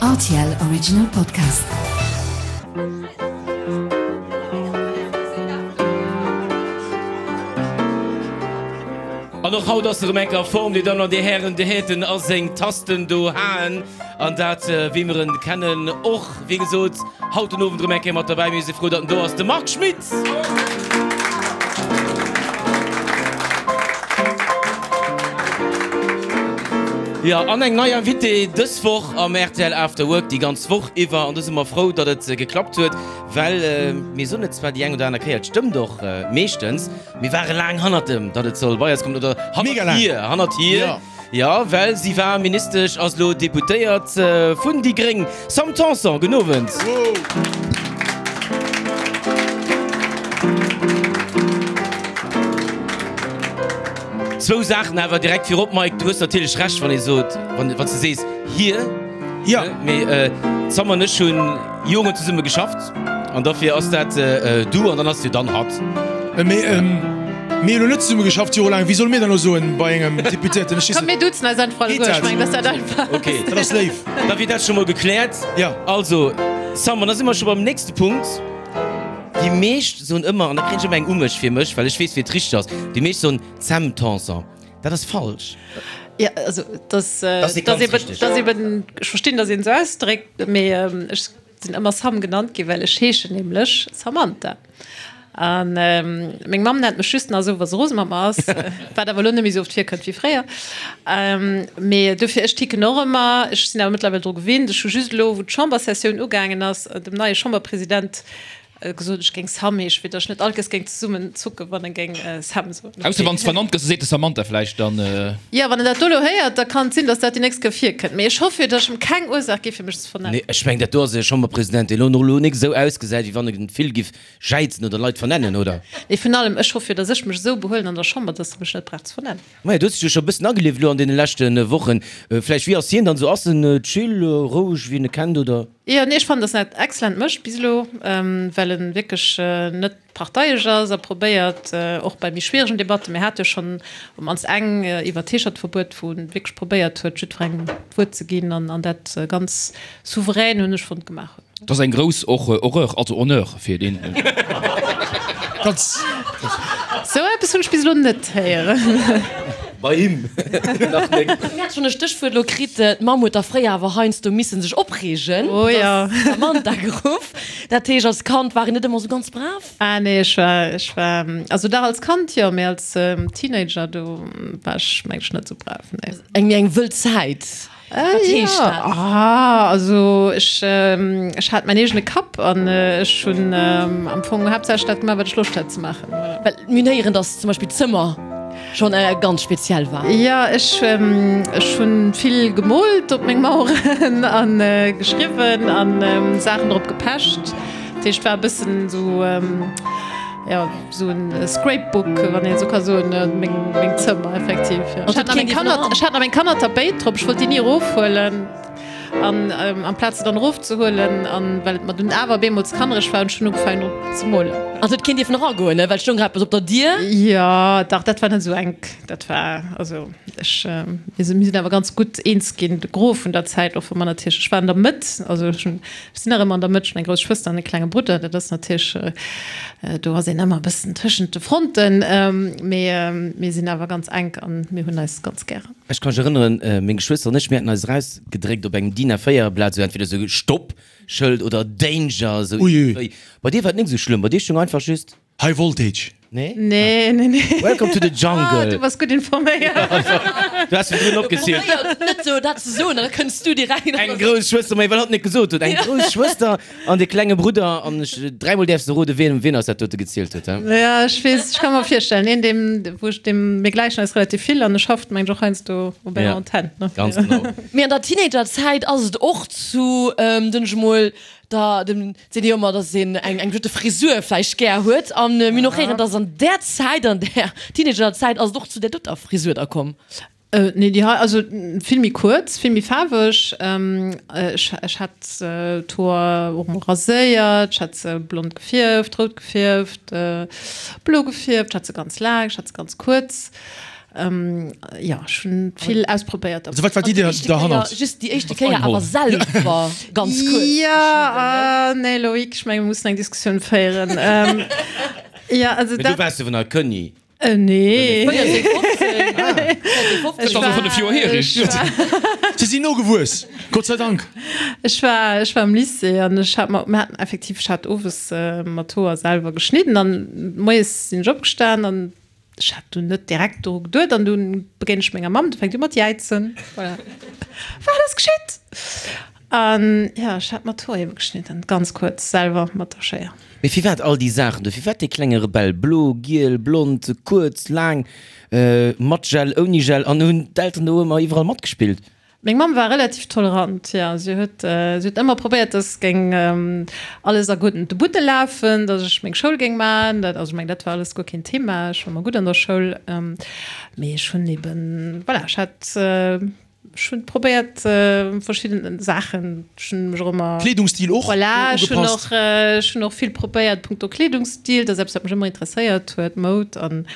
Rtl Original Podcast. An och haut ass erëm eng a Form, Dir Dammen an Dir Hären, de Häten a seng Tasten do haen. An dat, wéi mer en kennen, och, wéi gesot, haut den Owend erëm eng Kéier mat derbäi. Mir si frou, datt en do ass, de Marc Schmitt! Jo, an eng nei Invitée dës Woch am rtl After Work, déi ganz Woch iwwer. An do si mer frou, datt et geklappt huet, well mir soen et zwar déi eng oder aner Kéier, et stëmmt och meeschtens, mir ware laang hannert em, datt et soll bei eis kommen, oder hannert hir, hannert hir. Jo, well si war Ministesch, ass elo Deputéiert vun déi gréng. Sam Tanson, gudden Owend. Zwou Saachen awer direkt virop, Mike, du hues natierlech Recht, wann ee sot, wann s de sees hir. Jo. Mee d'Sam an ech hunn Joren zesumme geschafft an dofir ass dat du an dann ass jo dann hatt. Mee mir hunn elo net zesumme geschafft jorelaang. Wéi solle mir dann elo soen bei engem Deputéierten? Ech weess Komm, mir duzen eis einfach alleguer. Ech mengen, dass dat einfach ass. Ok, dat ass léif. Da wier dat scho mol gekläert. Jo. Also, Sam, an da si mer scho beim nächste Punkt. Déi meescht soen ëmmer, an da kréien ech ëmmer eng u mech fir mech, well ech weess, wéi et richteg ass, déi meescht soen Sam Tanson. Dat ass falsch. Jo, also, dass, dass eben, dass eben, ech verstinn, dass een esou ausdréckt, mee ech sinn ëmmer Sam genannt ginn, well ech heeschen nämlech Samantha. A meng Mamm nennt mech just nach esou, wa se rose mat mer ass, wat awer elo net méi esou oft virkënnt wéi fréier. Mee dofir, ech ticken och ëmmer. Ech sinn awer mëttlerweil dru gewinnt. Ech hu just elo, wou d'Chambersessioun ugaangen ass, dem neie Chamberpresident gesot, ech géing Sam heeschen, fir datt ech net all Kéiers géing zesummen zucken, wann e géing Sam soen. Ausser wann s vernannt gëss, da seet de Samantha vläicht dann. Jo, wann en dat do elo héiert, da kann et sinn, datt dat déi nächst Kéier virkënnt. Mee ech hoffe jo, datt ech em keng Ursaach gi fir mech ze vernennen. Nee, ech mengen, dat do ass e Chamberpresident, deen elo elo nik esou ausgesäit, wéi wann e vill giff jäizen oder Leit vernennen, oder? Nee, vun allem, ech hoffe jo, datt ech mech esou behuelen an der Chamber, datt e mech net brauch ze vernennen. Maja, du hues dech jo scho e bëssen agelieft elo an deene leschte Wochen. Vläicht, wéi ass hien dann esou? Ass en chill, roueg, wéi een e kennt, oder? Jo, nee, ech fannen, dass en dat excellent mécht bis elo, well en wierklech net parteiesch ass a probéiert, och bei méi schwieregen Debatten, mir hate jo schonn op d'mannst eng iwwert d'Heeschertverbuet, wou en wierklech probéiert huet, jiddwerengem d'Wuert ze ginn an dat ganz souverän, hunn ech fonnt, gemaach huet. Dat ass eng grouss Horreur, also Honneur fir deen. Sou eppes hunn ech bis elo net héieren. Bei him nach net. Mir hat schon e Stéchwuert elo kritt, d'Mamm huet da fréier awer heiansdo missen sech opreegen, Oh jo. dass d'Samantha geruff. Dat heescht, als Kand war een net ëmmer sou ganz brav? Ah nee, ech war, ech war, also dach als Kand jo, mee als Teenager do war ech meng ech net sou brav, nee. Eng méi eng wëll Zäit, wat heescht dat? Ah, also ech, ech hat mäin eegene Kapp an ech hunn am Fong haaptsächlech dat gemaach, wat ech Loscht hat ze maachen, voilà. Well mir hunn héieren, dass zum Beispill d'Zëmmer schonn ganz speziell war. Jo, ech, ech hunn vill gemoolt op meng Maueren an geschriwwen an Saachen drop gepecht. Dat heescht, war e bëssen esou, jo, esou en Scrapbook, wann een esou ka soen, meng, meng Zëmmer effektiv, jo. Ech hat nach meng Kanner, ech hat nach meng Kannertapéit drop, ech wollt déi ni erofhuelen. An amplaz se dann erofzehuelen, an well et mer dunn awer bemol ze kannereg war, hunn ech dunn ugefaangen drop ze molen. An et huet keen dierfen eragoen, ne? Well et stoung grad eppes op der Dier. Jo, dach, dat war net esou enk. Dat war, also ech, mir sinn, mir sinn awer ganz gutt eens ginn, de Gros vun der Zäit, och wa mer natierlech, ech war an der Mëtt, also ech hunn, ech sinn nach ëmmer an der Mëtt, ech hunn eng grouss Schwëster an e klenge Brudder, dat ass natierlech, do ass een ëmmer e bëssen tëschent de Fronten, mee mir sinn awer ganz enk an mir hunn eis ganz gären. Ech ka mech erënneren, meng Geschwëster an ech, mir haten eis erausgedréckt op engem DIN A4 Blat, esou entweder esou Stopp Schëld oder Danger, esou iergendwéi. Bei dir war et net esou schlëmm, bei dir stoung einfach just. High Voltage. Nee? Nee, nee, nee. Welcome to the jungle. Ah, du bass gutt informéiert. Du has virdrun opgezielt. Probéiert net esou dat ze soen, an da kënns du direkt. Eng grouss Schwëster, mä well hatt net gesot huet, eng grouss Schwëster An de klenge Brudder, an ech, dräimol däerfs de roden, wien, wien eis dat dote gezielt huet, he? Ja, ech weess, ech ka mer virstellen, een, deem, wou ech, deem, mir gläichen eis relativ vill an e schafft, mengen ech, och heiansdo op enger Ja, Antenn, ne? ganz genau. Mee an der Teenagerzäit ass et och zu, den ech emol, der, dem, seet ee jo ëmmer, dass een eng, eng bestëmmte Frisur vläicht gär huet. An mir hunn och héieren, dass an där Zäit, an där Teenagerzäit ass et och zu där doter Frisur da komm. Nee, déi hei, also vill méi kuerz, vill méi faarweg. Ech, ech hat d'Hoer och mol raséiert, ech hat se blond gefierft, rout gefierft, blo gefierft, ech hat se ganz laang, ech hat se ganz kuerz. Jo, ech hunn vill ausprobéiert. Also wat war d'Idee derhannert? Just déi éischte Kéier awer selwer ganz kuerz. Jo, nee Loïc, ech menge mir mussen eng Diskussioun féieren. Jo, also dat. Mee du waars jo nach Kënni. Nee. 14, 15. Dat ass jo 5 Joer hier, richteg? Si sinn nogewuess, Gott sei Dank. Ech war, ech war am Lycée an ech hat mer, mir haten effektiv, ech hat owes mer d'Hoer selwer geschnidden an moies sinn ech opgestan an Ech hat dunn net direkt doru geduet an dunn begéint ech menger Mamm, du fänkt u mat jäizen. Voilà. Wat ass geschitt? An jo, ech hat mer d'Hoer ebe geschnidden, ganz kuerz, selwer mat der Schéier. Mee firwat all déi Saachen do? Firwat dee klenge Rebell? Blo, giel, blond, kuerz, laang, mat Gel, ouni Gel an hunn d'Elteren do ëmmer iwwerall matgespillt? Meng Mamm war relativ tolerant, jo. Si huet, si huet ëmmer probéiert, dass géing alles a gudden Butte lafen, dass ech meng Schoul géing maachen. Dat, also ech mengen, dat war alles guer keen Thema. Ech war ëmmer gutt an der Schoul. Mee ech hunn eben, voilà, ech hat, ech hunn probéiert verschidden Saachen. Ech hunn mech och ëmmer. Kleedungsstil och Voilà, ech hunn ugepasst? och, ech hunn och vill probéiert punkto Kleedungsstil. Dat ass eppes, wat mech ëmmer interesséiert huet, Moud an,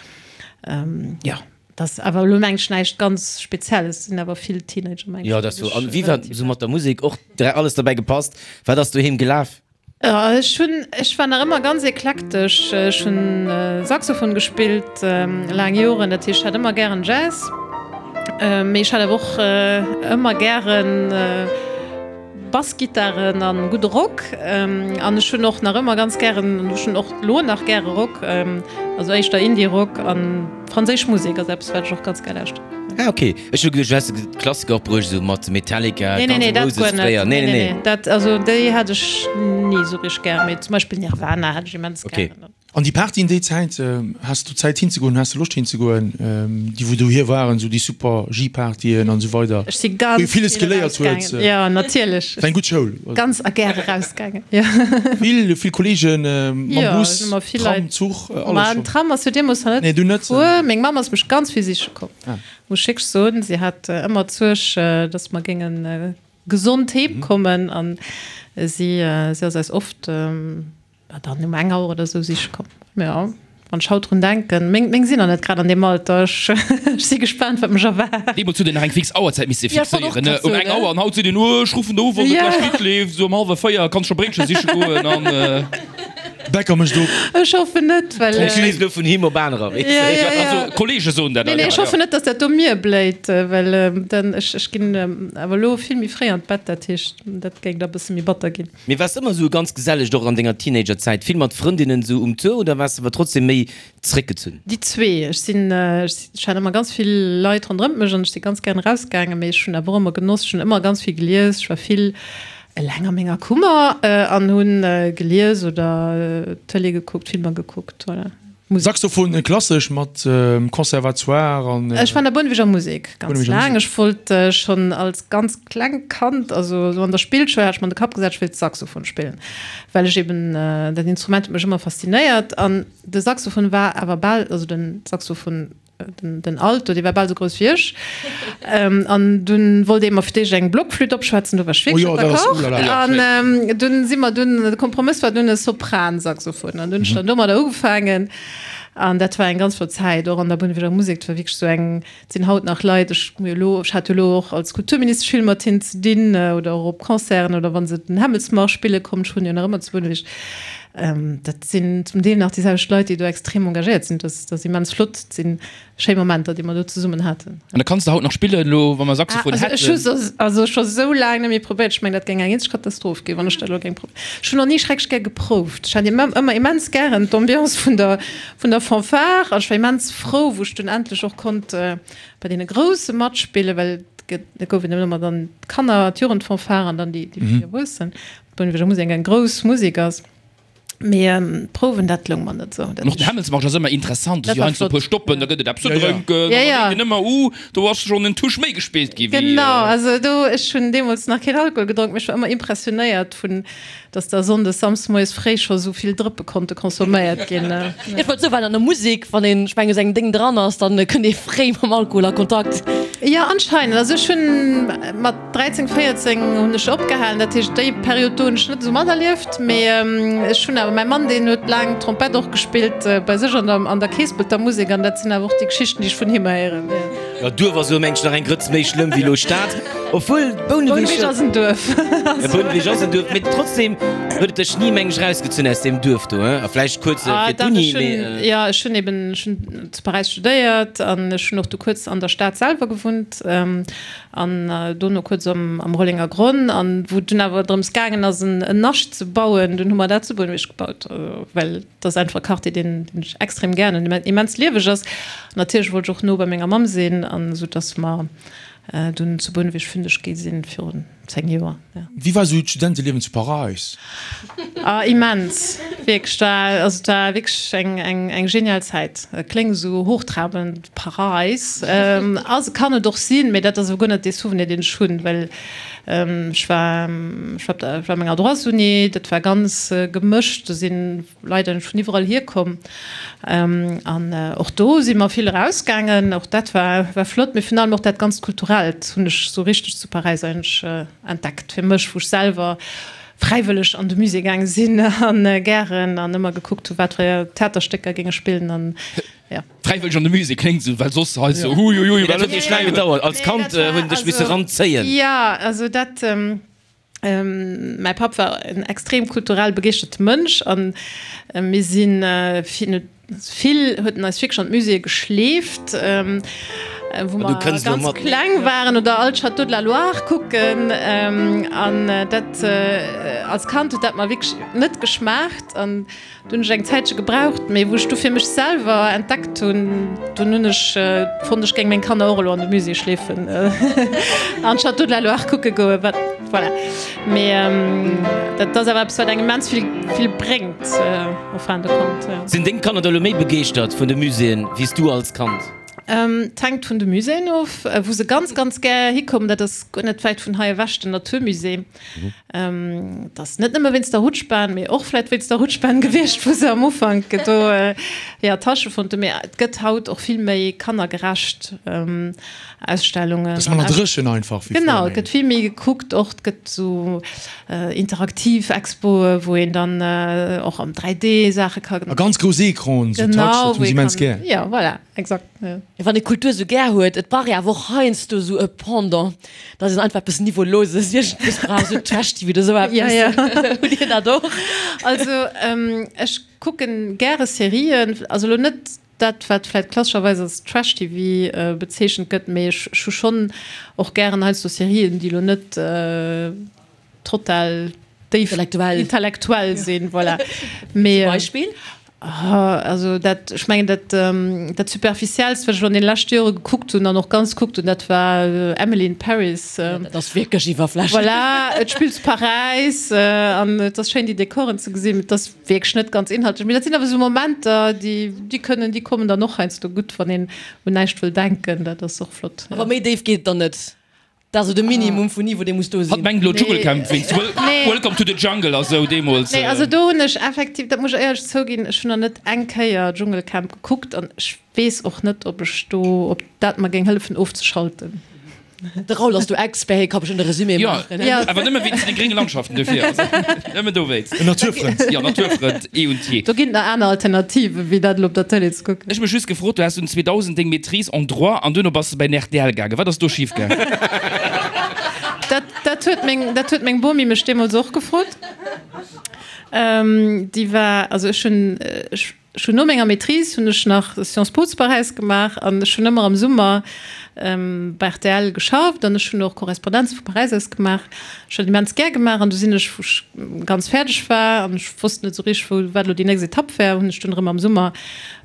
jo. Dat ass awer elo mengen ech näischt ganz Spezielles, sinn awer vill Teenager mengen ech. Jo, dat ass sou. An wéi war sou mat der Musek och alles derbäi gepasst? Wat ass doheem gelaf? Ech hunn, ech war nach ëmmer ganz eklektesch. Ech hunn Saxophon gespillt laang Joren, dat heescht ech hat ëmmer gären Jazz, mee ech hat awer och ëmmer gären Bassgittaren an gudde Rock. An ech hunn och nach ëmmer ganz gären, ech hunn och elo nach gäre Rock, also éischter Indie-Rock an franséisch Musek ass eppes wat ech och ganz gär lauschteren. Ah ok, ech hu geduecht du häss de Klassiker och bruecht, esou mat Metallica, Nee, nee, Guns nee, N' dat Roses guer net. fréier. Nee, nee, nee, dat, also déi hat ech ni esou richteg gär, mee zum Beispill Nirvana hat ech immens Ok. gären. An déi Partyen déi Zäit, has du Zäit hinzegoen, has du Loscht hinzegoen, déi wou dohier waren, esou déi super Ski-Partyen an esou weider, Ech si wou ee ganz villes vill geléiert huet? erausgaangen, jo natierlech. War eng gutt Schoul. Ganz a gär erausgaangen, jo. Vill, vill Kollegen mam Jo, Bus, ech hu mat vill Tram, Leit. Zuch, Ma alles den scho. Tram ass jo deemools nach net Nee, dunn net. gefuer. Meng Mamm ass mech ganz vill siche komm, Ah. muss ech wierklech soen. Si hat ëmmer d'Suerg, datt mer géinge gesond heem kommen an si, si ass eis oft, War dann um eng Auer oder sou siche komm. Jo, wann ech haut drun denken, meng, meng sinn nach net grad an deem Alter. Ech, ech si gespaant, wat mech erwaart. Deemools huet een nach eng fix Auerzäit misse Ja, ech wollt och fixéieren, ne? grad Um soen, eng Auer. An haut seet een, oh, ech ruffen der u, wann et Ja. gleich gutt leeft, sou um hallwer 4 kanns scho Bréitche siche goen an. Bäcker mécht op. Ech hoffen net, well. Ech lees elo vun him op anerer, weess de. Ja, ja, ja. Also, Kollege soen dat. Nee, nee, ech hoffen net, dass dat do mir bléit, well dann, ech, ech ginn awer elo vill méi fréi an d'Bett, dat heescht, dat géing da bësse méi batter ginn. Mee waars de ëmmer esou ganz geselleg och an denger Teenagerzäit, vill mat Frëndinnen esou um Tour oder waars de awer trotzdem méi zréckgezunn? Déi zwee. Ech sinn, ech hat ëmmer ganz vill Leit ronderëmt mech an ech si ganz gären erausgaangen, mee ech hunn awer och ëmmer genoss, ech hunn ëmmer ganz vill gelies, ech war vill eleng a menger Kummer an hunn gelies oder Tëlee gekuckt, Filmer gekuckt, voilà. Musek. Saxophon klassesch mat Conservatoire an. Ech war an der Bounneweger Musek ganz laang. Ech wollt schonn als ganz klengt Kand, also esou an der Spillschoul, hat ech mer an de Kapp gesat, ech wéilt Saxophon spillen, well ech eben, dat Instrument huet mech ëmmer faszinéiert. An de Saxophon war awer bal, also den Saxophon, Den Alto, dee war bal sou grouss wéi ech. An dunn wollt ee mer fir d'éischt eng Blockflütt opschwätzen, do war ech wierklech net d'accord. An dunn si mer dunn, de Kompromëss war dunn e Sopransaxophon. An dunn hunn ech dann domadder ugefaangen. An dat war eng ganz flott Zäit, och an der Bounneweger Musek. Dat war wierklech sou eng, et sinn haut nach Leit, ech hu jo elo, ech hat jo elo och als Kulturministesch vill mat hinnen ze dinn oder och op Concerten oder wa se den Hämmelsmarsch spille kommen, ech hunn jo nach ëmmer zu Bouneweg. Dat sinn zum Deel nach déi selwecht Leit, déi do extrem engagéiert sinn. Dat ass immens flott. Dat si schéi Momenter, déi mer do zesummen haten. An da kanns de haut nach spillen, elo wa mer Saxophon Ah, also ech hu hätten? se also scho sou laang net méi probéiert. Ech mengen, dat géing eng eenzeg Katastroph ginn, wann ech dat elo géing probéieren. Ech hunn och ni schrecklech gär geprouft. Ech hat ëmmer immens gären d'Ambiance vun der, vun der Fanfare an ech war immens frou, wou ech dunn endlech och konnt bei deene Grousse matspillen, well et gouf eben ëmmer dann d'Kanner-, d'Jugendfanfare an dann déi, déi méi Erwuessen. D'Bounneweger Musek eng grouss Musek ass, mee d'Prouwen, dat loung mer net esou. An och den Hämmelsmarsch ass ëmmer interessant, do Dat si war heiansdo e puer flott, Stoppen, ja. da gëtt et eppes ze Ja, ja. drénken Ja, an da ja. denkt een ëmmer, uh, do ass schonn en Touch méi gespillt gi wéi. Genau, also do, ech hunn deemools nach keen Alkohol gedronk, mee ech war ëmmer impressionéiert vun, dass da sonndes, samsdes moies fréi scho sou vill Drëppe konnte consomméiert ginn. Ech wollt soen, well an der Musek, wann een, ech mengen, esou engem Déng dran ass, dann kënnt ee fréi mam Alkohol a Kontakt. Jo, anscheinend. Also ech hunn mat 13, 14 hunn ech opgehalen, dat heescht déi Period do hunn ech net esou materlieft, mee ech hunn awer, mäi Mann deen huet laang Trompett och gespillt bei sech an der an der Keespelter Musek an dat sinn awer och déi Geschichten déi ech vun him héieren. Jo, Duerf ass elo mengen ech nach eng Grëtz méi schlëmm wéi elo Stad, obwuel Bouneweg. Bouneweg ass en Duerf. Jo, Bouneweg ass en Duerf, mee trotzdem huet et dech ni mengen ech erausgezunn aus deem Duerf do, hein? A vläicht kuerz fir d'Uni, mee. Jo, ech hunn eben, ech hunn zu Paräis studéiert an ech hunn och du kuerz an der Stad selwer gewunnt an dono kuerz am Rollenger Gronn. An wou et dunn awer drëms gaangen ass en Nascht ze bauen, dunn hu mer dat zu Bouneweg gebaut, well et ass einfach e Quartier deen ech extrem gären hunn, deen immens lieweg ass. An natierlech wollt ech och no bei menger Mamm sinn, an esou dass mer dunn zu Bouneweg fündeg gi sinn virun 10 Joer, ja. Wéi war esou d'Studenteliewen zu Paräis? Ah, immens, wierklech, war, also et war wierklech eng, eng, eng genial Zäit. Et kléngt esou hochtrabend, Paräis, ass, kann et och sinn, mee dat ass awer guer net dee Souvenir, deen ech hunn, well ech war, ech war op der, ech war op menger Droitsuni, dat war ganz gemëscht, do sinn Leit eigentlech vun iwwerall hierkomm an och do si mer vill erausgaangen, och dat war, war flott, mee virun allem och dat ganzt Kulturellt hunn ech esou richteg zu Paräis eigentlech entdeckt fir mech, wou ech selwer fräiwëlleg an de Musée gaange sinn an gären an ëmmer gekuckt hu wat fir Theaterstécker géinge spillen an jo. Fräiwëlleg an de Musée kléngt esou, well soss hei esou huiuiui. Mee dat huet iech laang gedauert, als Kand hunn dech misse ranzéien. Jo, also dat. Mäi Papp war en extrem kulturell begeeschterte Mënsch an mir si vill, huet en eis wierklech an d'Muséeë geschleeft, wou mer ganz kleng waren oder all d'Châteaux de la Loire kucken. An dat als Kand huet dat mer wierklech net geschmaacht. Do hunn ech eng Zäitche gebraucht, mee wou ech du fir mech selwer entdeckt hunn, dunn hunn ech fonnt, ech géing meng Kanner och elo an de Musée schleefen an d'Château de la Loire kucke goen. Wat, voilà. Mee dat ass awer eppes, wat engem immens vill, vill bréngt en fin de compte, jo. Sinn deng Kanner da elo méi begeeschtert vun de Muséeën wéi s du als Kand? Et hänkt vun de Muséeën of. Wou se ganz, ganz gär hikommen, dat ass guer net wäit vun hei ewech, den Naturmusée. Et ass net nëmme wéinst der Rutschbahn, mee och vläit wéinst der Rutschbahn gewiescht, wou se am Ufank do hir Attache fonnt hunn. Mee et gëtt haut och vill méi kannergerecht Ausstellungen. Et ass manner dréchen einfach wéi fréier. Genau, et gëtt vill méi gekuckt och. Et gëtt esou interaktiv Expoe wou een dann och am 3D Saache ka. A ganz grouss Ecranen, esou Touch, dat hunn se immens gär. Jo, voilà, exakt. Wann ee Kultur esou gär huet, et brauch ee awer och heiansdo esou e Pendant. Dass een einfach eppes Niveauloses iergendwéis brauch, esou Trash-TV oder esou eppes. Ja, ja. Hutt Dir dat och? Also, ech kucken gäre Serien, also elo net dat, wat vläicht klassescherweis als Trash-TV bezeechent gëtt, mee ech hu schonn och gären heiansdo Serien, déi elo net total déif Intellektuell. intellektuell sinn, voilà. Mee, Zum Beispill? Also dat, ech mengen dat, dat Superficiellst, wat ech elo an deene leschte Jore gekuckt hunn an och ganz gekuckt hunn, dat war Emily in Paris. Ja, dat ass wierklech iwwerflächlech. Voilà, et spillt zu Paräis an et ass schéin déi Dekoren ze gesinn, mee et ass wierklech net ganz inhaltlech. Mee dat sinn awer esou Momenter, déi, déi kënnen, déi kommen dann och heiansdo gutt, wann een un näischt wëll denken. Dat ass och flott. Awer méi déif geet et dann net? Dat ass esou de Minimum vun Niveau, dee muss do Hatt sinn. mengt elo Dschungelcamp wéinst Welcome to the Jungle a sou deemools. Nee, also do hunn ech effektiv, dat muss ech éierlech zouginn, ech hunn nach net eng Kéier Dschungelcamp gekuckt an ech weess och net, ob ech do, ob dat mer géing hëllefen ofzeschalten. De Raoul ass do Expert, hie ka bestëmmt e Resumé Jo, maachen. awer nëmme wéinst de grénge Landschaften dofir, also nëmme dowéinst. En Naturfrënd. Jo, Naturfrënd eh und je. Do ginn et nach aner Alternative wéi dat elo op der Tëlee ze kucken. Ech mech just gefrot, du has dunn 2000 deng Maîtrise en droit an duerno bass de bei den rtl gaangen. Wat ass do schif gaangen? Dat, dat huet meng, dat huet meng Bomi mech deemools och gefrot. Déi war, also ech hunn, ech hunn no menger Maîtrise hunn ech nach Sciences Po zu Paräis gemaach an ech hunn ëmmer am Summer bei rtl geschafft an ech hunn och Korrespondenze vu Paräis aus gemaach. Ech hunn dat immens gär gemaach an du sinn ech, wou ech ganz fäerdeg war an ech wosst net esou richteg, wou, wat elo déi nächst Etapp wär, hunn ech dunn erëm am Summer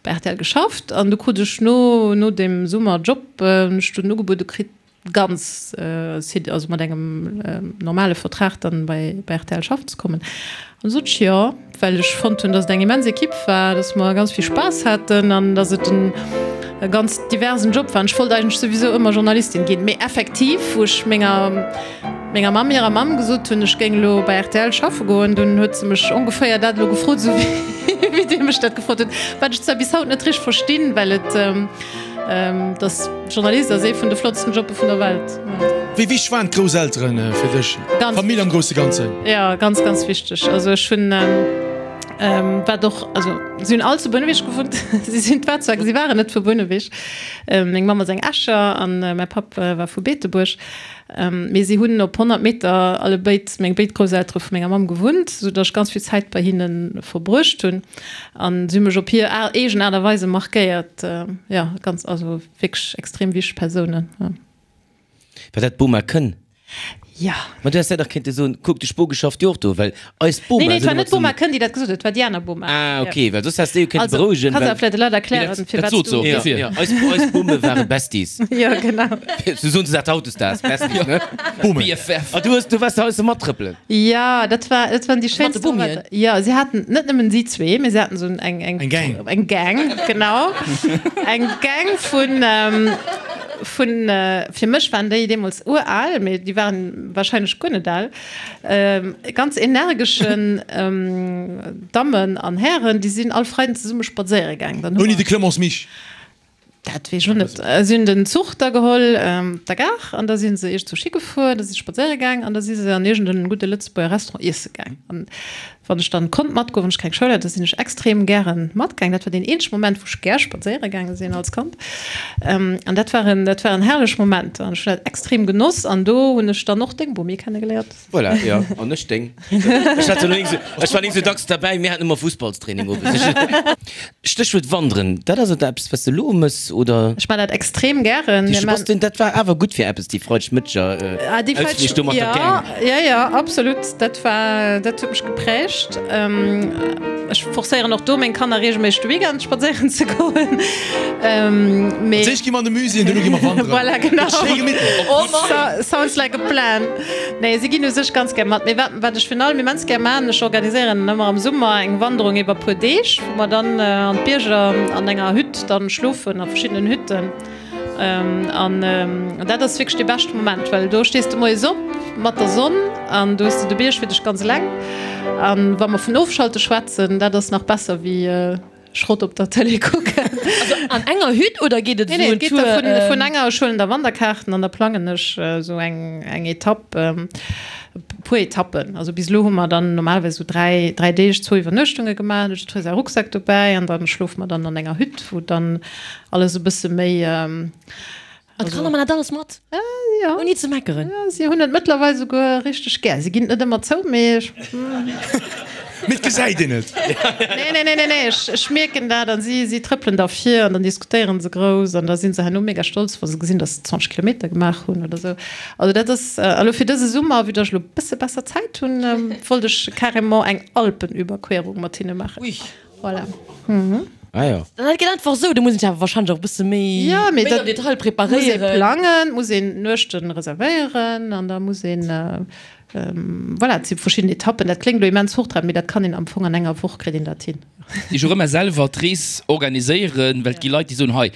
bei rtl geschafft an du krut ech no no deem Summerjob hunn ech dunn ugebuede kritt ganz also mat engem normale Vertrag dann bei bei rtl schaffen ze kommen. An du sot ech jo, well ech fonnt hunn, datt et eng immens Equipe war, datt mer ganz vill Spaass haten an datt et en e ganz diversen Job war. An ech wollt eigentlech souwisou ëmmer Journalistin ginn. Mee effektiv, wou ech menger menger Mamm hirer Mamm gesot hunn, ech géing elo bei rtl schaffe goen, dunn huet se mech ongeféier dat elo gefrot, esou wéi Dir mech dat gefrot hutt, wat ech zwar bis haut net richteg verstinn, well et. Dass Journalist ass ee vun de flottsten Jobbe vun der Welt. Wéi wichteg waren d'Grousselteren fir dech? D'Famill am grousse Ganzen? Jo, ganz, ganz wichteg. Also ech hunn, wat och, also si hunn all zu Bouneweg gewunnt. Si sinn war zwar, si waren net vu Bouneweg. Meng Mamm ass eng Escher an mäi Papp war vu Beetebuerg. Mee si hunn op 100 Meter allebéid, meng béid Grousseltere vu menger Mamm gewunnt, sou datt ech ganz vill Zäit bei hinne verbruecht hunn. An si hu mech op hir eegen Aart a Weise markéiert. Jo, ganz, also wierklech extrem wichteg Persounen. War dat d'Boma Kënn? Jo. Ma du häss dat dach kéinte soen, kuck, de Spoge schafft jo och do, well eis Boma Nee, nee, et sinn war ëmmer net d'Boma zesummen. Kënn, déi dat gesot huet, et war déi aner Boma. Ah, okay, well soss häss de jo kéinte Also, berouegen, kanns well. awer vläicht de Leit erklären, Dat firwat sot se du. och Ja, dofir. ja, eis, eis Bome ware Besties. Jo, genau. Sou soen se dat hautdesdaags, Besties, ne? Bome. BFF. Ah, du hues, du waars heiansdo mattrëppelen. Jo, dat war, dat waren déi Mat de schéinste Bomien? Momenter. Jo, si haten net nëmmen si zwee, mee si haten esou eng, eng. Eng Gang. Eng Gang, genau. Eng Gang vun, vun, fir mech waren déi deemools ural, mee déi waren wahrscheinlech guer net al, ganz energeschen Dammen an Hären, déi sinn all Freiden zesumme spadséiere gaang. Dann hu Ouni mer. de Clemence Mich. Dat weess ech och net. Si hunn den Zuch da geholl op der Gare an da si se iergendwou higefuer, da si se spadséiere gaang an da si se an iergend en gudde Lëtzebuerger Restaurant iesse gaang. An wann ech dann konnt matgoen, wann ech keng Schoul hat, da sinn ech extrem gären matgaang. Dat war deen eenzege Moment, wou ech gär spadséiere gaange sinn als Kand. An dat waren, dat waren herrlech Momenter an ech hunn dat extrem genoss. An do hunn ech dann och deng Bomi kennegeléiert. Voilà, jo, an ech deng. Ech hat elo eng, ech war nik sou dacks derbäi, mir haten ëmmer Fussballstraining owes. Stéchwuert Wanderen, dat ass et eppes, wat s de elo mëss, oder? Ech man dat extrem gären. Du bass den, dat war awer gutt fir eppes, déi Freidegmëtteger Ausflich do mat der Gang. Jo, jo, absolut, dat war, dat huet mech geprägt. Ech forcéieren och do meng Kanner reegelméisseg de Weekend spadséieren ze goen. Mee. Als éischt gi mer an de Musée an duerno gi mer wanderen. Voilà, genau. Schéi gemittlech. Oh Mann. Sounds like a plan. Nee, si ginn u sech ganz gär mat. Mee wat, wat ech virun allem immens gär maachen, ech organiséieren ëmmer am Summer eng Wanderung iwwer puer Deeg, wou mer dann an d'Bierger an enger Hütt dann schlofen, a verschiddenen Hütten. An dat ass wierklech dee beschte Moment, well do stees de moies op mat der Sonn an du hues de de Bierg fir dech ganz eleng. An wa mer vun Ofschalte schwätzen, dat ass nach besser wéi Schrott op der Tëlee kucken. Also an enger Hütt oder geet et Nee, nee, esou et geet en da Tour? vun, vun enger, ech huelen da Wanderkaarten an da plangen ech esou eng, eng Etapp, e puer Etappen. Also bis elo hu mer dann normalerweis esou 3, 3 Deeg, zwou Iwwernuechtunge gemaach. Huet jiddweree säi Rucksak dobäi an da schlofe mer dann an enger Hütt, wou dann alles e bësse méi. An d'Kanner man dat alles mat? Jo. Ouni ze meckeren? Jo, si hunn et mëttlerweil souguer richteg gär. Si ginn et net ëmmer zou, mee ech. Mee et gesäit een et. Nee, nee, nee, nee, nee, ech, ech mierken dat an si, si trëppelen da vir an dann diskutéieren se grouss an da si se herno mega stolz, wa se gesinn, dass se 20 Kilometer gemaach hunn oder sou. Also dat ass, a lo fir dëse Summer, vue dass ech lo e bësse besser Zäit hunn, wollt ech carrément eng Alpenüberquerung mat hinne maachen. Ui. Voilà. Ah jo. Dat geet einfach esou, do muss een sech awer wahrscheinlech och e bësse méi, Ja, mee méi dat am Detail muss ee preparéieren. plangen, muss een Nuechten reservéieren an da muss een, voilà, et si verschidden Etappen. Dat kléngt elo immens hochtrabend, mee dat kann een am Fong an enger Woch kritt een dat hin. Déi och ëmmer selwer d'Rees organiséieren, well et gi Leit, déi soen, hei,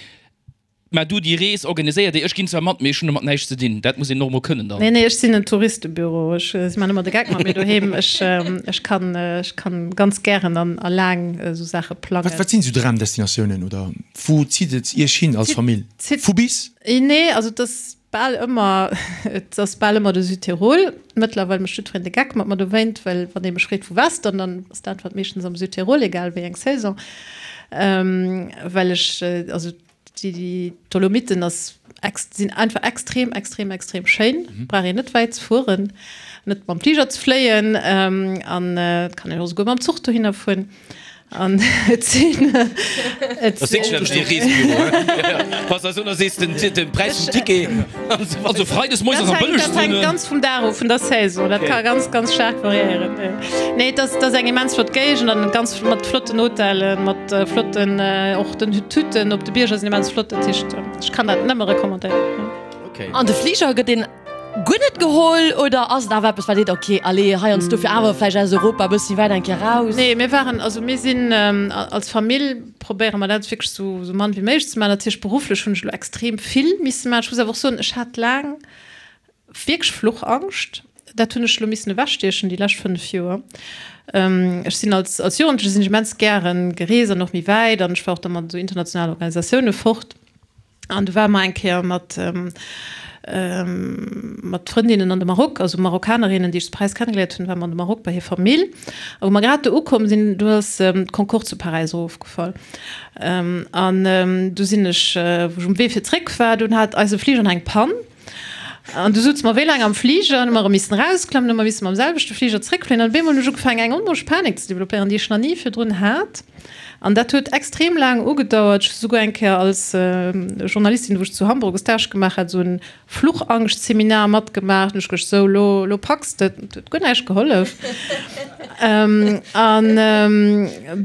Mä du, déi Rees organiséiert Dir, ech ginn zwar mat, mee ech hunn domat näischt ze dinn. Dat muss een och emol kënnen dann. Nee, nee, ech sinn en Touristebüro. Ech, si maachen ëmmer de Geck mat mir doheem. Ech, ech kann, ech kann ganz gären an a laang esou Saache plangen. Wat, wat sinn esou Dramdestinatiounen oder wou zitt et Iech hin als Famill? Vu bis? Nee, also et ass bal ëmmer, et ass bal ëmmer de Südtirol. Mëttlerweil mécht jiddwereen de Geck mat mer dowéint, well wann ee mech freet, wou waars de dann, dann ass d'Äntwert meeschtens am Südtirol, egal wéi eng Saison. Well ech, also Déi Dolomiten ass sinn einfach extrem, extrem, extrem schéin. Brauch een net wäit ze fueren, net mam Fliger ze fléien an et kann een och esouguer mam Zuch dohinner fueren. An et sinn et Das sinn sinn. de Reesbüro, he? Pass eis un, da sees den den Präis vum Ticket. Also Freides moies ass am Dat hänkt, dat bëllegsten. hänkt ganz vum Dag of, vun der Saison. Dat ka ganz, ganz staark variéieren. Nee, et ass, et ass eng immens flott Géigend an ganz mat flotten Hotellen, mat flotten och den d'Hütten op de Bierger sinn immens flott. Dat heescht, ech kann dat nëmme recommandéieren. Okay. An de Fliger gëtt een guer net geholl oder ass et awer eppes wat seet, ok, allez, heiansdo fir awer vläicht aus Europa e bëssi wäit eng Kéier raus? Nee, mir waren, also mir sinn als Famill probéiere mer dat wierklech sou sou mann wéi méiglech ze maachen. Natierlech berufflech hunn ech elo extrem vill misse maachen. Ech muss awer och soen, ech hat laang wierklech Fluchangscht. Dat hunn ech elo missen ewechstiechen déi lescht 5 Joer. Ech sinn als als Jugendleche sinn ech immens gären gereest an och méi wäit an ech war och da mat esou internationalen Organisatioune fort. An du ware mer eng Kéier mat, mat Frëndinnen an de Maroc, also Marokkanerinnen, déi ech zu Paräis kennegeléiert hunn, ware mer an de Maroc bei hir Famill. A wou mer grad do ukomm sinn, do ass d'Concorde zu Paräis erofgefall. An du sinn ech, wou ech um Wee fir zréck war, dunn hat eise Fliger nach eng Pann. An du souze mer wéi laang am Fliger, an hu mer erëm missen erausklammen, hu mer misse mam selwechte Fliger zréckfléien. An op eemol hunn ech ugefaangen, eng onmoosch Panik ze developpéieren, déi ech nach ni virdrun hat. An dat huet extrem laang ugedauert. Ech hu souguer eng Kéier als Journalistin, wou ech zu Hamburg e Stage gemaach hat, esou en Fluchangschtseminar matgemaach. Hunn ech geduecht, sou, elo, elo packs de et. Et huet guer näischt gehollef. An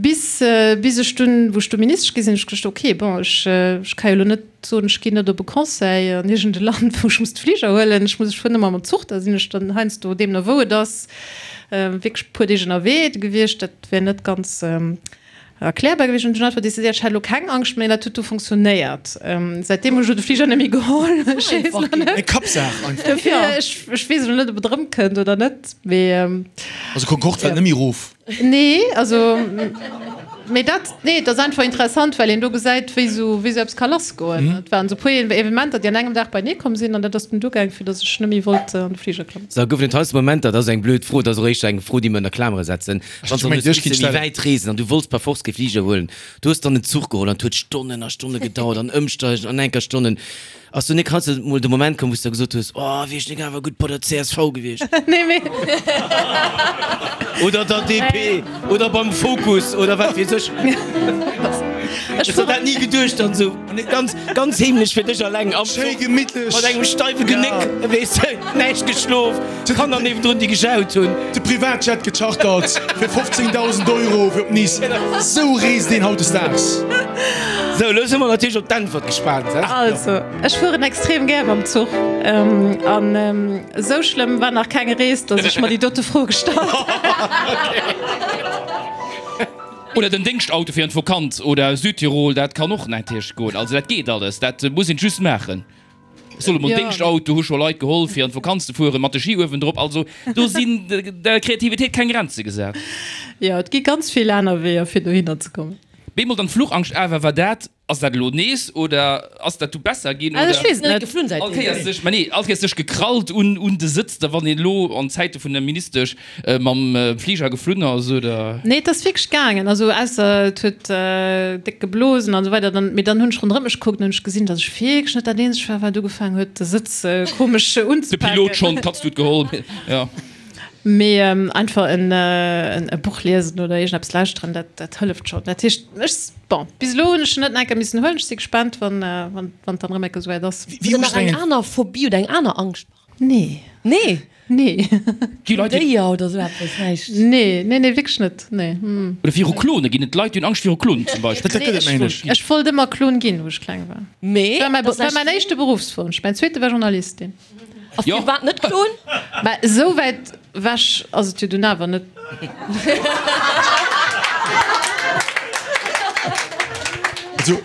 bis, bis ech dunn, wou ech du Ministesch gi sinn, hunn ech geduecht, okay, bon, ech, ech ka jo elo net soen, ech ginn net op e Conseil an iergend e Land, wou ech muss de Fliger huelen, ech muss, ech fueren ëmmer mam Zuch, da sinn ech dann heiansdo, deemno wou et ass, wierklech e puer Deeg ënnerwee gewiescht. Dat wär net ganz erklärbar gewiescht. An ech hunn einfach decidéiert, ech hätt elo keng Angscht méi. Dat huet du funktionéiert. Säitdeem hunn ech elo de Fliger net méi geholl. Ech weess elo net. Eng Kappsaach einfach. Dofir, ech, ech weess elo net, ob et erëmkënnt oder net, mee. Also Concorde fält net méi erof? Nee, also, mee dat, nee, et ass einfach interessant, well een do gesäit, wéi esou, wéi esou eppes ka lassgoen. Et waren esou puer Evenementer, déi an engem Dag beienee komm sinn, an dat ass dunn duergaang, fir datt ech net méi wollt an de Fliger klammen. Sou, goufen et heiansdo Momenter, dat ass eng blöd Fro, dat ass och éischter eng Fro, déi mer ënner Klamere setzen, wann s du hues misse méi wäit reesen an du wollts par force kee Fliger huelen, du hues dann en Zuch geholl an et huet Stonnen a Stonne gedauert an ëmsteigen an enker Stonnen. Ass du nik heiansdo mol de Moment komm, wou s de gesot hues, Oh, wier ech nik awer gutt bei der csv gewiescht? Nee, mee. Oder der DP oder beim Fokus oder wat weess ech. Ech Hues der dat ni geduecht dann esou ganz, ganz heemlech fir dech alleng am Schéi Zuch gemittlech. mat engem steiwe Genéck, weess de, näischt geschlof, d'Kanner niewendrun, déi gejaut hunn. De Privatjet gechartert fir 15.000 Euro fir op Nice. Sou reest een hautdesdaags. Sou, elo si mer natierlech op d'Äntwert gespaant. Also, ech fueren extrem gär mam Zuch. An esou schlëmm war nach keng Rees, datt ech mer déi dote Fro gestallt hätt. Oder den Déngschtauto fir an d'Vokanz oder Südtirol, dat kann och natierlech goen. Also dat geet alles, dat muss een just maachen. Ech soll emol Déngschtauto, hu scho Leit geholl fir an d'Vokanz ze fueren, mat de Ski uewendrop. Also do sinn der Kreativitéit keng Grenze gesat. Jo, et gi ganz vill aner Weeër fir dohinner ze kommen. Bemol dann d'Fluchangscht awer, war dat, ass dat elo nees oder ass dat du besser ginn oder? Ech weess et net. Geflunn All Kéiers sech, mä nee, all Kéiers sech gekrallt un un de Sëtz, da wann een elo an Zäite vun der Ministesch Mam Fliger geflunn ass, oder? Nee, et ass wierklech gaangen. Also ausser et huet déck geblosen an esou weider. Dann, mee dann hunn ech ronderëm mech gekuckt an hunn ech gesinn, datt ech wierklech net dat eenzegt war, wat ugefaangen huet, de Sëtz komesch unzepaken. De Pilot schonn, d'Katz huet geholl, jo. Mee einfach en e Buch liesen oder iergendeppes lauschteren, dat dat hëlleft schonn. Dat heescht, ech, bon, bis elo hunn ech en net enker missen huelen. Ech si gespaant, wann wann et dann erëm enke souwäit ass. Hutt Der nach eng aner Phobie oder eng aner Angscht? Nee. Nee? Nee. Gi Leit, déi. Déier oder sou eppes, näischt? Nee, nee, nee, wierklech net, nee. Oder viru Klone ginn et Leit, déi hunn Angscht viru Klonen zum Beispill. Dat gëtt et, mengen ech. Ech wollt ëmmer Klon ginn, wou ech kleng war. Mee. Dat war mäi, war mäin éischte Beruffswonsch. Mäin zweete war Journalistin. A firwat net Klon? Mä esou wäit ewech ass et jo dunn awer net. Also,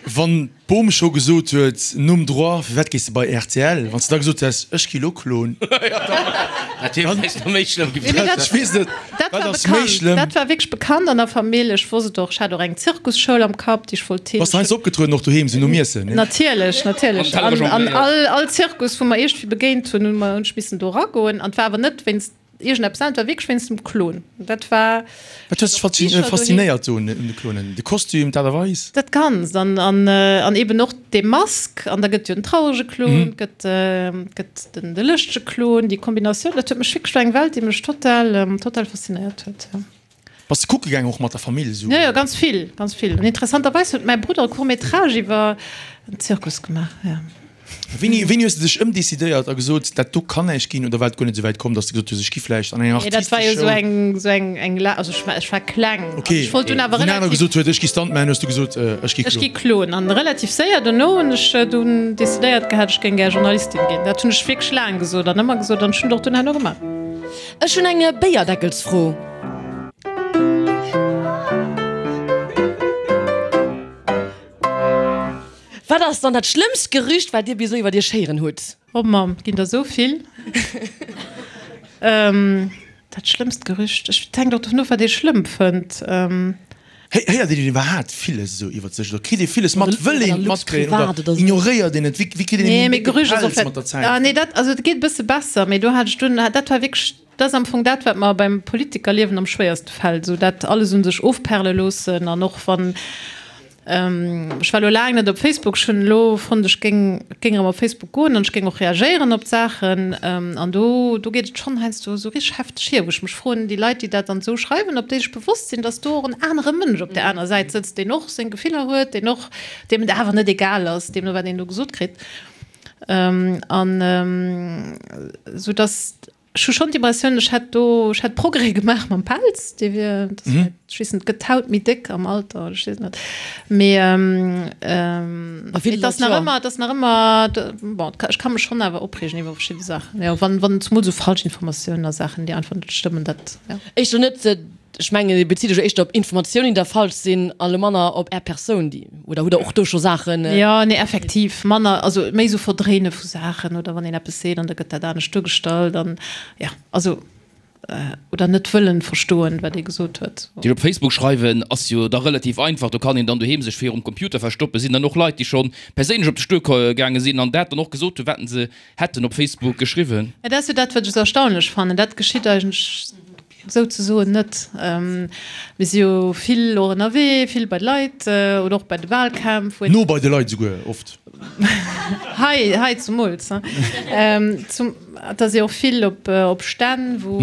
wann. D'Bom scho gesot huet, nom Droit, firwat gees de bei rtl? Wann s de da gesot häss, ech gi lo Klon. Dat wier vläicht nach méi schlëmm gewiescht. Ech weess net, Dat wat war ass méi bekannt, schlëmm? dat war wierklech bekannt an der Famill. Ech wosst et och, ech hat och eng Zirkusschoul am Kapp, déi ech wollt Bass de heiansdo opgetrueden, och doheem, sou nom Iessen, ne? Natierlech, natierlech. Am Teller An jongléiert. all, all Zirkus, wou mer iergendwéi begéint hunn, hu mer, hunn ech missen do eragoen. An et war awer net wéinst Iergendeppes anescht, war wierklech wéinst dem Klon. Dat war. Wat huet dech faszinéiert do un de Klonen? De Kostüm, d'Aart a Weis? Dat Ganzt an, an, an eben och dee Mask. An da gëtt jo den traurege Klon, gëtt, gëtt den, de lëschtege Klon. Déi Kombinatioun, dat huet mech wierklech, war eng Welt, déi mech total, total faszinéiert huet, jo. Bass de kucke gaang och mat der Famill esou? Jo, jo, ganz vill, ganz vill. An interessanterweis huet mäi Brudder e Court métrage iwwer en Zirkus gemaach, jo. Wéini, wéini hues de dech ëmdecidéiert a gesot, dat do kann näischt ginn? Oder war et guer net esou wäit komm, datt s de gesot hues, ech gi vläicht an eng Nee, dat war jo artistesch esou Schoul? eng, esou eng, eng la, also ech war, ech war kleng. Ok, Ech wollt dunn awer wou en aner relativ. gesot huet, ech gi Stuntman, hues du gesot, ech gi Ech gi Klon. Klon. An relativ séier dono hunn ech dunn decidéiert gehat, ech géing gär Journalistin ginn. Dat hunn ech wierklech laang gesot an ëmmer gesot an ech hunn et och dunn herno gemaach. Ech hunn eng Béierdeckelsfro. Wat ass dann dat schlëmmst Gerücht, wat Dir bis elo iwwer Iech héieren hutt? Oh Mamm, et ginn der esou vill. Dat schlëmmst Gerücht, ech, et hänkt och dovun of, wat ee schlëmm fënnt. Héiert een iwwerhaapt villes esou iwwert sech oder kritt ee villes mat? Wëll een et matkréien oder ignoréiert een et? Wéi kritt een Nee, méi mee décke Gerücht ass och Pelz mat der vläicht, Zäit? ah nee, dat, also et geet e bësse besser, mee do hat ech dunn, dat war wierklech, dat ass am Fong dat, wat mer beim Politikerliewen am schwéierste fält, esou dat alles un sech ofperle loossen an och wann, Ech war elo laang net op Facebook. Ech hunn elo fonnt, ech géing, géing erëm op Facebook goen an ech géing och reagéieren op d'Saachen. An do, do geet et schonn heiansdo esou richteg hefteg hier, wou ech mech froen, déi Leit, déi dat dann esou schreiwen, ob déi sech bewosst sinn, datt do och en anere Mënsch op där aner Säit sëtzt, deen och seng Gefiller huet, deen och, deem et awer net egal ass, deemno wat een do gesot kritt. An esou datt. Ech hu schonn d'Impressioun, ech hätt do, ech hätt Progrès gemaach mam Pelz, dee wier, dat ass vläicht, ech weess net, gëtt d'Haut méi déck am Alter oder ech weess et net, mee et ass nach ëmmer, et ass nach ëmmer, bon, ech ka mech schonn awer opreegen iwwer verschidde Saachen, jo, wann, wann zemol esou Falschinformatiounen a Saachen, déi einfach net stëmmen, dat, jo. Éischter net, ech mengen, Dir bezitt Iech jo éischter op Informatiounen, déi da falsch sinn, a lo manner op Är Persoun, déi, oder hutt Der och do scho Saachen? Jo, nee, effektiv manner, also méi esou Verdréine vu Saachen oder wann een eppes seet an da gëtt dat anescht duergestallt an, jo, also, oder net wëllen verstoen, wat ee gesot huet. Déi op Facebook schreiwen ass jo da relativ einfach, do kann een dann doheem sech virum Computer verstoppen. Sinn dann och Leit, déi scho perséinlech op de Stuer gaange sinn an dat dann och gesot hunn, wat se hätten op Facebook geschriwwen? Dat ass jo dat, wat ech esou erstaunlech fannen, dat geschitt eigentlech Souzesoen net. Mir si jo vill och ënnerwee, vill bei de Leit oder och bei de Wahlkämpf. No bei de Leit esouguer oft. Hei, hei zumools. Et ass jo och vill op Stänn, wou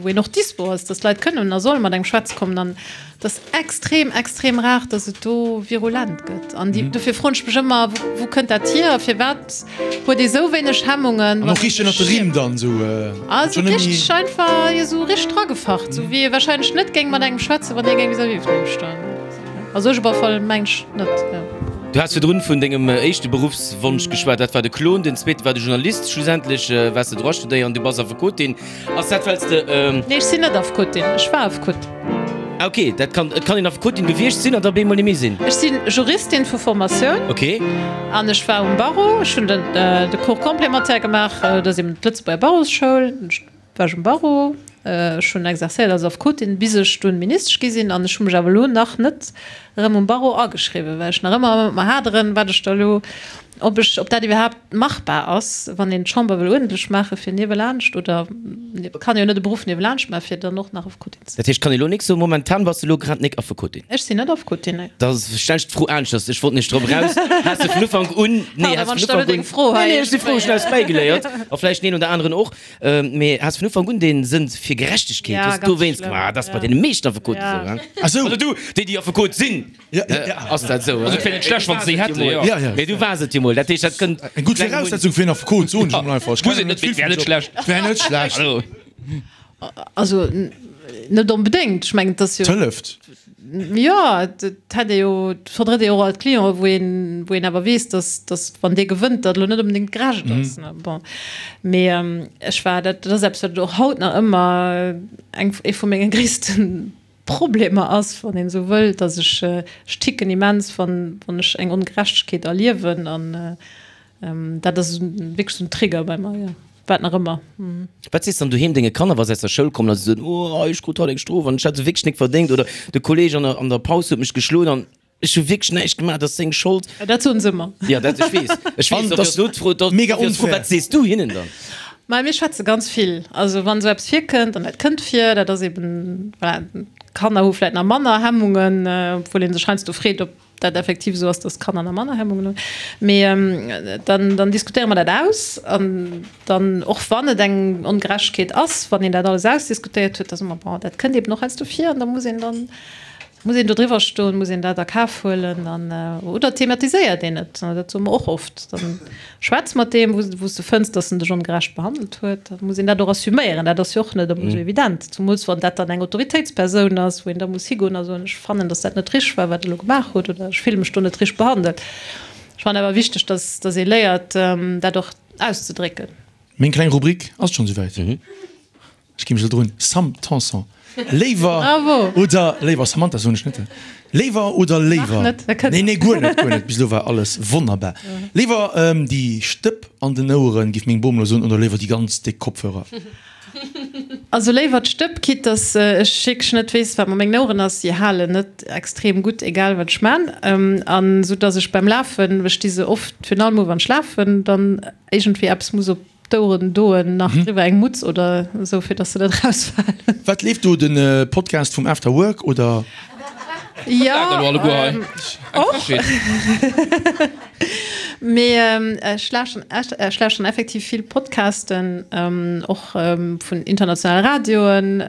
een och dispo ass, dass d'Leit kënnen a solle mat engem schwätze kommen. An et ass extrem, extrem rar, dass et do virulent gëtt. An dofir froen ech mech ëmmer, Wou kënnt dat hier a firwat huet ee sou wéineg Hemmungen? An och richteg ënnert de Rimm dann esou. Ah, sou richteg einfach, jo, sou richteg dragefacht, sou wéi ee wahrscheinlech net géing mat engem schwätzen, wann hie géing vis-à-vis vun engem stoen. Also ech op alle Fall mengen ech net, jo. Du has virdrun vun dengem éischte Beruffswonsch geschwat, dat war de Klon, den zweete war de Journalist, schlussendlech waars de Droit studéieren, du bass Affekotin. Ass dat well s de. Nee, ech sinn net Affekotin, ech war Affekot. Ah ok, dat kann, et kann een Affekotin gewiescht sinn an da bemol net méi sinn. Ech si Juristin vu Formatioun. Ok. An ech war um Barreau, ech hunn den de Cours complémentaire gemaach, dat ass eben d'Lëtzebuerger Barreauschoul, war ech um Barreau, ech hunn exercéiert als Affekotin bis ech dunn Ministesch gi sinn an ech hu mech awer elo nach net erëm um Barreau ageschriwwen, well ech nach ëmmer mat mer haderen, wat ech da elo Ob ech, ob dat iwwerhaapt machbar ass, wann een d'Chamber wëll uerdentlech maachen, fir niewelaanscht, oder et kann ee jo net e Beruff niewelaanscht maachen, fir dann och nach Affekotin ze sinn. Dat heescht, kann ee lo nik soen, momentan bass de lo grad nik Affekotin? Ech sinn net Affekotin, nee. Da stellen ech d'Fro aneschters, ech wollt nämlech drop eraus, has de vun Ufank un, nee, Pardon, has wann vun ech da elo Ufank un, deng Fro nee, hei nee, ech si frou, ech hunn eppes bäigeléiert, a vläicht den een oder aneren och, mee has vun Ufank un dee Sënn fir Gerechtegkeet, Ja, hues ganz dowéinst schlëmm, gemaach, dat ass bei ja. deene meeschten Affekoten Ja. esou, hein? Ah sou. Also du, déi, déi Affekot sinn. Ass dat esou? Also et wär net schlecht, wann se déi hätten, jo. Ja, ja. Mee du waars et jo mol. Dat heescht, dat kënnt. Eng gutt Viraussetzung fir en Affekot, soen ech emol einfach. Ech Muss kennen et net net, vill mee et wär vum net Job. schlecht. Et wär net schlecht. Also. Also net onbedéngt. Ech mengen, et ass jo. Et hëlleft. Jo, et hätt ee jo, et vertritt ee jo och alt Clienten, wou een, wou een awer weess, dass, dass wann dee gewënnt, dat elo net onbedéngt gerecht ass. Bon, mee ech war, dat ass eppes, wat och haut nach ëmmer eng, ee vu menge gréissten Problemer ass, wann een esou wëll, dass ech, ech ticken immens, wann, wann ech eng Ongerechtegkeet erliewen an dat ass wierklech esou en Trigger bei mer, jo, wat nach ëmmer. Wat sees dann doheem denge Kanner, wa se aus der Schoul kommen a se soen, oh ech krut haut eng Strof an ech hat se wierklech nik verdéngt oder de Kolleeg an der, an der Paus huet mech geschloen an ech hu wierklech näischt gemaach, dat ass seng Schold. Dat soen se ëmmer. Jo, dat, ech weess, ech weess, An dofir ass elo d'Fro, mega dofir ass d'Fro, unfair. wat sees du hinnen dann? Mä mir schwätze ganz vill. Also wann esou eppes virkënnt, an dat kënnt vir, dat ass eben, voilà, d'Kanner hu vläicht nach manner Hemmungen, obwuel ee sech heiansdo freet, ob dat effektiv esou ass, datt d'Kanner nach manner Hemmungen hunn. Mee dann, dann diskutéiere mer dat aus an dann, och wann et eng Ongerechtegkeet ass, wann een dat alles ausdiskutéiert huet, da soe mer, bon, dat kënnt eben och heiansdo vir an da muss een dann, Muss een do driwwer stoen, muss een dat a Kaf huelen an, oder thematiséiert een et? Dat soe mer och oft. Dann schwätz mat deem, wou s de fënns, datt en dech ongerecht behandelt huet. Da muss een dat och assuméieren. Dat ass jo och net ëmmer esou evident, zumools wann dat dann eng Autoritéitspersoun ass, wou een da muss higoen a soen, ech fannen, datt dat net richteg war, wat Der elo gemaach hutt, oder ech fille mech do net richteg behandelt. Ech fannen awer wichteg, datt datt ee léiert, dat och auszedrécken. Meng kleng Rubrik ass schonn esouwäit. Ech gi mech elo drun. Sam Tanson, Léiwer Bravo! oder léiwer, Samantha soen ech net, léiwer oder léiwer? Nach net, dat kënnt Nee, nee, guer net, guer net, bis elo war alles wonnerbar. Léiwer déi Stëpp an den Oueren, géif meng Bom elo soen, oder léiwer déi ganz déck Kopfhörer? Also léiwer d'Stëpp, quitte dass ech wierklech net weess, wat mat mengen Oueren ass. Si halen net extrem gutt, egal wat ech man. An esou dass ech beim Lafen, ech di se oft virun allem u wann ech lafen, dann iergendwéi eppes muss op d'Oueren doen, nach driwwer eng Mutz oder esou, fir dass se net erausfalen. Wat leeft do? Den Podcast vum After Work oder? Jo, och. Mee ech lauschteren ech lauschteren effektiv vill Podcasten, och vun internationale Radioen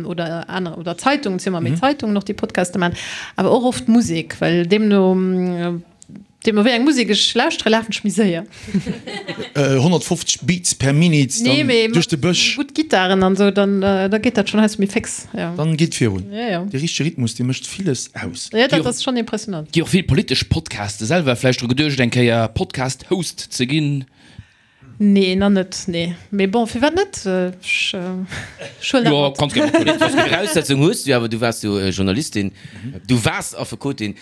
oder aner oder Zeitungen, et si ëmmer méi Zeitungen och, déi Podcaste maachen, awer och oft Musek, well deemno deemno wéi eng Musek ech lauschtere lafen ech méi séier. 150 Beats per Minute Nee, mee duerch de Bësch. Gutt Gittaren an esou, dann da geet dat schonn heiansdo méi féx, jo. Dann geet virun. Jo, jo. De richtege Rhythmus, dee mécht villes aus. Jo, dat ass schonn impressionant. Gi och vill politesch Podcaste. Selwer vläicht dru geduecht eng Kéier Podcast-Host ze ginn? Nee, nach net, nee. Mee bon, firwat net? Ech huelen dat Jo, mat. kanns gär mathuelen. Viraussetzung hues du jo awer, du waars jo Journalistin. Du waars Affekotin.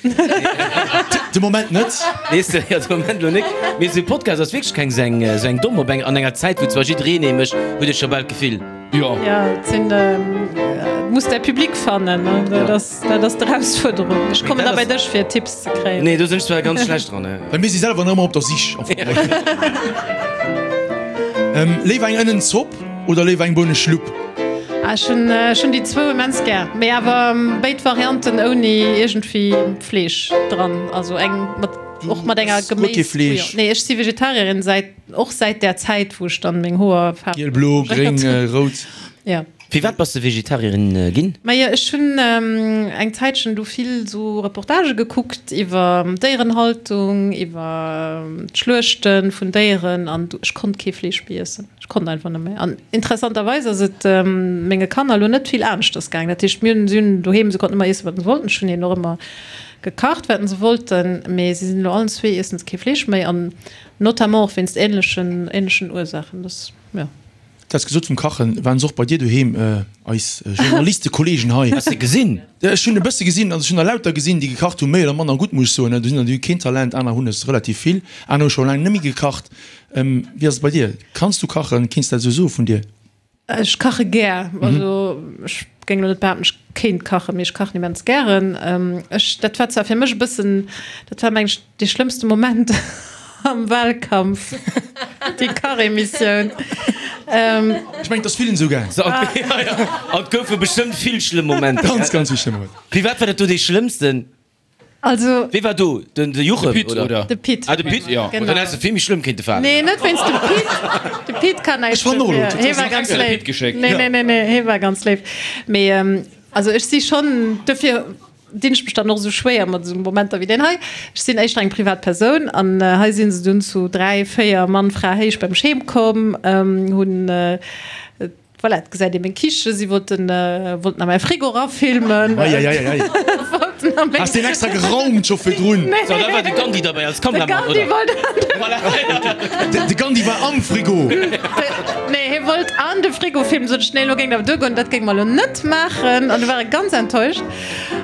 De Moment net. Weess de, jo, de Moment elo nik. Mee esou e Podcast ass wierklech keng esou eng, esou eng domm op eng, an enger Zäit, wou zwar jiddereen ee mécht, huet ee scho bal d'Gefill. Jo. Jo, et sinn, et muss däi Public fannen, ne? Dat ass, dat ass d'Erausfuerderung. Ech kommen da bei dech, fir Tipps ze kréien. Nee, do sinn ech zwar ganz schlecht dran. Well mir si selwer nach ëmmer op der Sich. Am Fong. Léiwer eng Ënnenzopp Oder léiwer eng Bouneschlupp? Ah, ech hunn, ech hunn déi zwou immens gär, mee awer béid Varianten ouni iergendwéi Fleesch dran, also eng mat, och mat enger Guer kee Fleesch? Geméisbouillon. Nee, ech si Vegetarierin säit, och säit där Zäit, wou ech dann meng Hoer faarweg Giel, blo, gréng, rout. Ja. Firwat bass de Vegetarierin ginn? Majo, ech hunn eng Zäitchen do vill sou Reportagë gekuckt iwwer Déierenhaltung, iwwer d'Schluechte vun Déieren an ech konnt kee Fleesch méi iessen. Ech konnt einfach net méi. An interessanterweis ass et menge Kanner elo net vill aneschters gaangen. Dat heescht, mir hunn, si hunn doheem, se konnten ëmmer iessen, wat se wollten. Ech hunn hinnen och ëmmer gekacht, wat se wollten. Mee si sinn elo allen zwee, iessen se kee Fleesch méi an notamment och wéinst änlechen, änlechen Ursaachen. Dass, jo. Du has gesot vum Kachen, waren se och bei dir doheem, eis Journalistekollegen hei? Has de gesinn? Ech hunn e bësse gesinn, also ech hunn der lauter gesinn, déi gekacht hunn, méi oder manner gutt, muss ech soen. Do sinn der, déi hu keen Talent, aner hunn es relativ vill, aner hu scho laang net méi gekacht. Wéi ass et bei dir? Kanns du kachen? Kéints du dat esou soe vun dir? Ech kache gär. Also ech géing elo net behaapten, ech kéint kachen, mee ech kachen immens gären. Ech, dat war zwar fir mech e bëssen, dat war mengen ech, Dee schlëmmste Moment am Wahlkampf, déi Kachemissioun. Ech mengen, et ass villen esou gaang. An et goufe bestëmmt vill schlëmm Momenter. Ganz, ganz vill schlëmm Momenter. Firwat war dat do dee schlëmmsten? Also. Wee war do? Den Juchem, De Pit, oder? De Pit. Ah, de Pit, jo. Genau. Dann häss de vill méi schlëmm kéinte falen. Nee, net wéinst dem Pit. De Pit kann näischt Ech fannen och elo, dofir. Hee war ganz extra de léif. Pit geschéckt. Nee, nee, nee, nee, hee war ganz léif. Mee also ech si schonn dofir. Dinn ech mech dann och esou schwéier mat esou Momenter wéi deen hei. Ech sinn éischter eng privat Persoun an hei si se dunn zu 3, 4 Mann, Fra héich beim Scheem komm, hunn, voilà, et gesäit ee meng Kiche, si wollten, wollten a mäi Frigo erafilmen. Eieieiei. Wollten a meng. Has deen extra geraumt scho virdrun? Nee. So, da war de Gandhi derbäi als Kameramann, De oder? Gandhi wollt an de. Voilà. De Gandhi war am Frigo. Nee, hie wollt an de Frigo filmen, sot ech, nee, elo géing dat awer duergoen, dat géinge mer elo net maachen. An du war e ganz enttäuscht.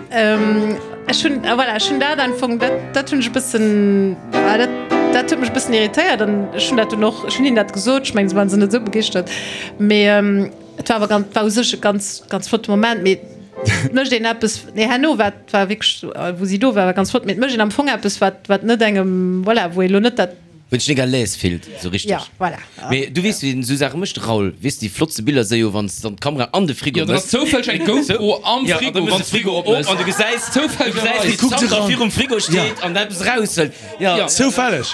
Ech hunn, voilà, ech hunn dat am Fong, dat, dat hunn ech e bëssen, dat, dat huet mech e bëssen irritéiert an ech hunn dat dunn och, ech hunn hinnen dat gesot, ech mengen, se waren se net esou begeeschtert, mee et war awer ganz, war u sech e ganz, ganz flotte Moment, mee et mécht een eppes, nee, herno war, war wierklech, wou si do war, war ganz flott, mee et mécht een am Fong eppes, wat, wat net engem, voilà, wou ee lo net dat. Wou een sech net à l'aise fillt, esou richteg. Ja, voilà. Mee du weess, wéi een esou Saache mécht, Raoul. Weess de, déi flottste Biller si jo, wann s de dann d'Kamera an de Frigo Jo, dann ass méchs. zoufälleg eng GoPro am Ja, an Frigo, da méchs wann de de Frigo Frigo op opmëss. an du gesäis, du gesäis, Zoufällegerweis. wéi Kuckt d'Sandra eran. virum Frigo steet an eppes eraushëlt. Ja. Ja. Zoufälleg.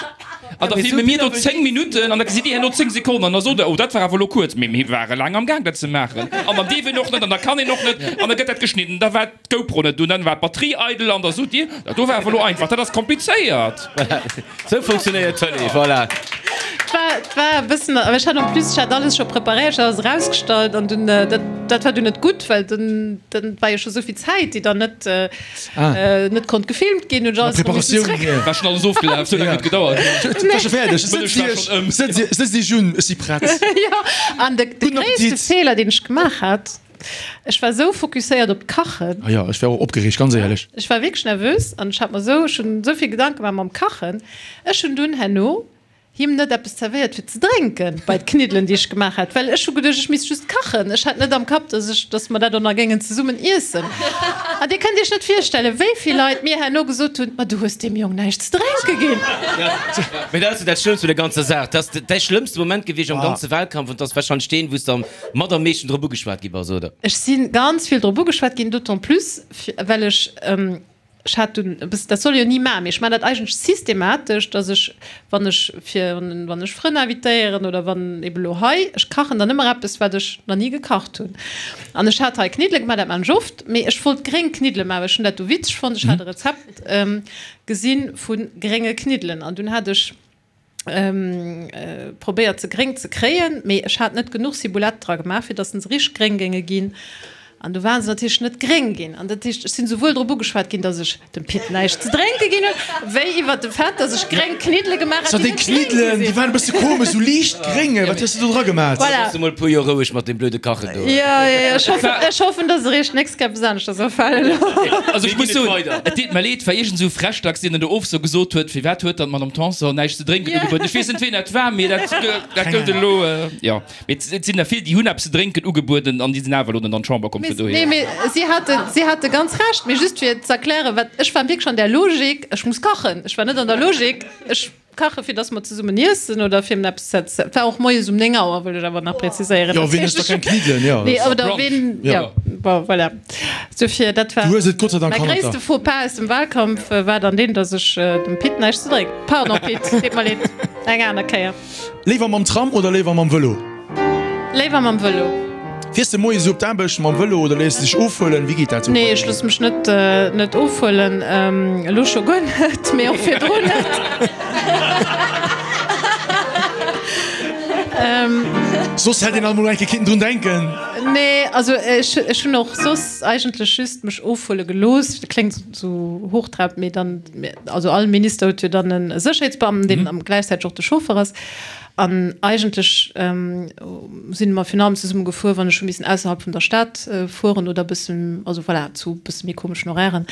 An da filme mir do 10 Minutten an da gesitt dir herno 10 Sekonnen an da sot der, oh dat war awer elo kuerz. Mee mir ware laang am Gaang dat ze maachen an dann dierf een och net an da kann een och net an da gëtt dat geschnidden. Da war d'GoPro net un, dann war d'Batterie eidel an da sot dir, dat do war awer elo einfach. Dat ass komplizéiert. Sou funktionéiert Tëlee, voilà. Et war e bëssen, awer ech hat en plus, ech hat alles scho preparéiert, ech hat alles erausgestallt an dunn, dat, dat war dunn net gutt, well dunn, dann war jo scho souvill Zäit, déi dann net, net konnt gefilmt ginn, hunn ech alles erëm missen Preparatioun, zréck. War schonn alles ofgelaf, sou laang huet gedauert. Et war scho fäerdeg. D'Mëllech war schonn ëm. Sëtz Iech, sëtzt Iech un, ech si prett. Jo, an de, de Gudden gréisste Appetit. Feeler, deen ech gemaach hat, Ech war sou fokusséiert op d'Kachen. Ah jo, ech war och opgereegt, ganz éierlech. Ech war wierklech nervös an ech hat mer sou, ech hunn sou vill Gedanke gemaach mam Kachen. Ech hunn dunn herno. Him net eppes zerwéiert fir ze drénken bei d'Kniddelen déi ech gemaach hat, well ech hu geduecht ech misst just kachen. Ech hat net am Kapp, dass ech, dass mer dat och nach géingen zesummen iessen. An Dir kënnt Iech net virstellen, wéi vill Leit mir herno gesot hunn, Ma du hues deem Jong näischt ze drénke ginn. Mee dat ass jo dat Schlëmmst un der ganzer Saach. Dat ass däi schlëmmste Moment gewiescht am ganze Wahlkampf an 't ass wahrscheinlech deen, wou s de am mat am meeschten drop ugeschwat gi bass, oder? Ech si ganz vill drop ugeschwat ginn, d'autant plus well ech, Ech hat dunn e bëssen, dat soll ee jo ni maachen, mee ech maachen dat eigentlech systematesch, datt ech, wann ech fir, wann ech Frënn invitéieren oder wann ebe lo hei, ech kachen dann ëmmer eppes, wat ech nach ni gekacht hunn. An ech hat hei Kniddele gemaach, dat maachen ech oft, mee ech wollt gréng Kniddele maachen, well ech hunn dat du witzeg fonnt. Ech hat e Rezept gesi vu grénge Kniddelen an dunn hat ech, Probéiert se gréng ze kréien, mee ech hat net genuch Ciboulette dra gemaach fir dass se richteg gréng géinge ginn an du waren se natierlech net gréng ginn an dat heescht ech sinn souwuel drop ugeschwat ginn dass ech dem Pit näischt ze drénke ginn hunn wéi iwwert de Fait dass ech gréng Kniddele gemaach hat déi net gréng gi sinn. Déi waren e bësse komesch, sou liicht gréng, wat hues de do dra gemaat? Voilà. Looss emol e puer Joer roueg mat deem blöde Kachen do. Jo, jo, jo, ech hoffen, ech hoffen dass eréischt d'nächst Kéier eppes aneschters afalen. Also ech muss soen, et deet mer leed, war iergend esou Frechdachs deen dann do of sou gesot huet, firwat huet dann d'Madame Tanson näischt ze drénken ugebueden. Ech weess net ween dat war, mee dat dat gëllt elo, jo. Mee et sinn der vill déi hunn eppes ze drénken ugebueden an déi sinn awer elo net an d'Chamber komm vun dohier. Nee, mee si hate si hate ganz Recht, mee just fir z'erklären, wat ech war wierklech an där Logik, ech muss kachen. Ech war net an der Logik, ech Kache fir dass mer zesummen iessen oder fir em eppes ze. Et war och moies um 9 Auer, wëll ech awer nach präziséieren. Jo, ween ësst da keng Kniddelen, jo. Nee, oder ween, jo, bon, voilà. Dofir, dat war Du hues et Gott sei Dank mäi hannert der. gréisste Faux-pas aus dem Wahlkampf war dann deen, dass ech dem Pit näischt ze drénken. Pardon Pit, deet mer leed, eng aner Kéier. Léiwer mam Tram oder léiwer mam Vëlo? Léiwer mam Vëlo. Fiers de moies op d'Aarbecht mam Vëlo oder léiss de dech ofhuelen? Wéi geet dat sou bei dir? Nee, ech loosse mech net net ofhuelen. Elo scho guer net, mee och virdrun net. Soss hätt een alt mol eng Kéier kinnten drun denken. Nee, also ech ech hunn och soss eigentlech just mech ofhuele gelooss. Dat kléngt sou hochtrabend, mee dann, also all Minister huet jo dann e Sécherheetsbeamten, deen gläichzäiteg och de Chauffer ass. An eigentlech sinn mer virun allem zesumme gefuer, wann ech hu missen ausserhalb vun der Stad fueren oder e bëssen, also voilà, zu e bësse méi komeschen Horairen.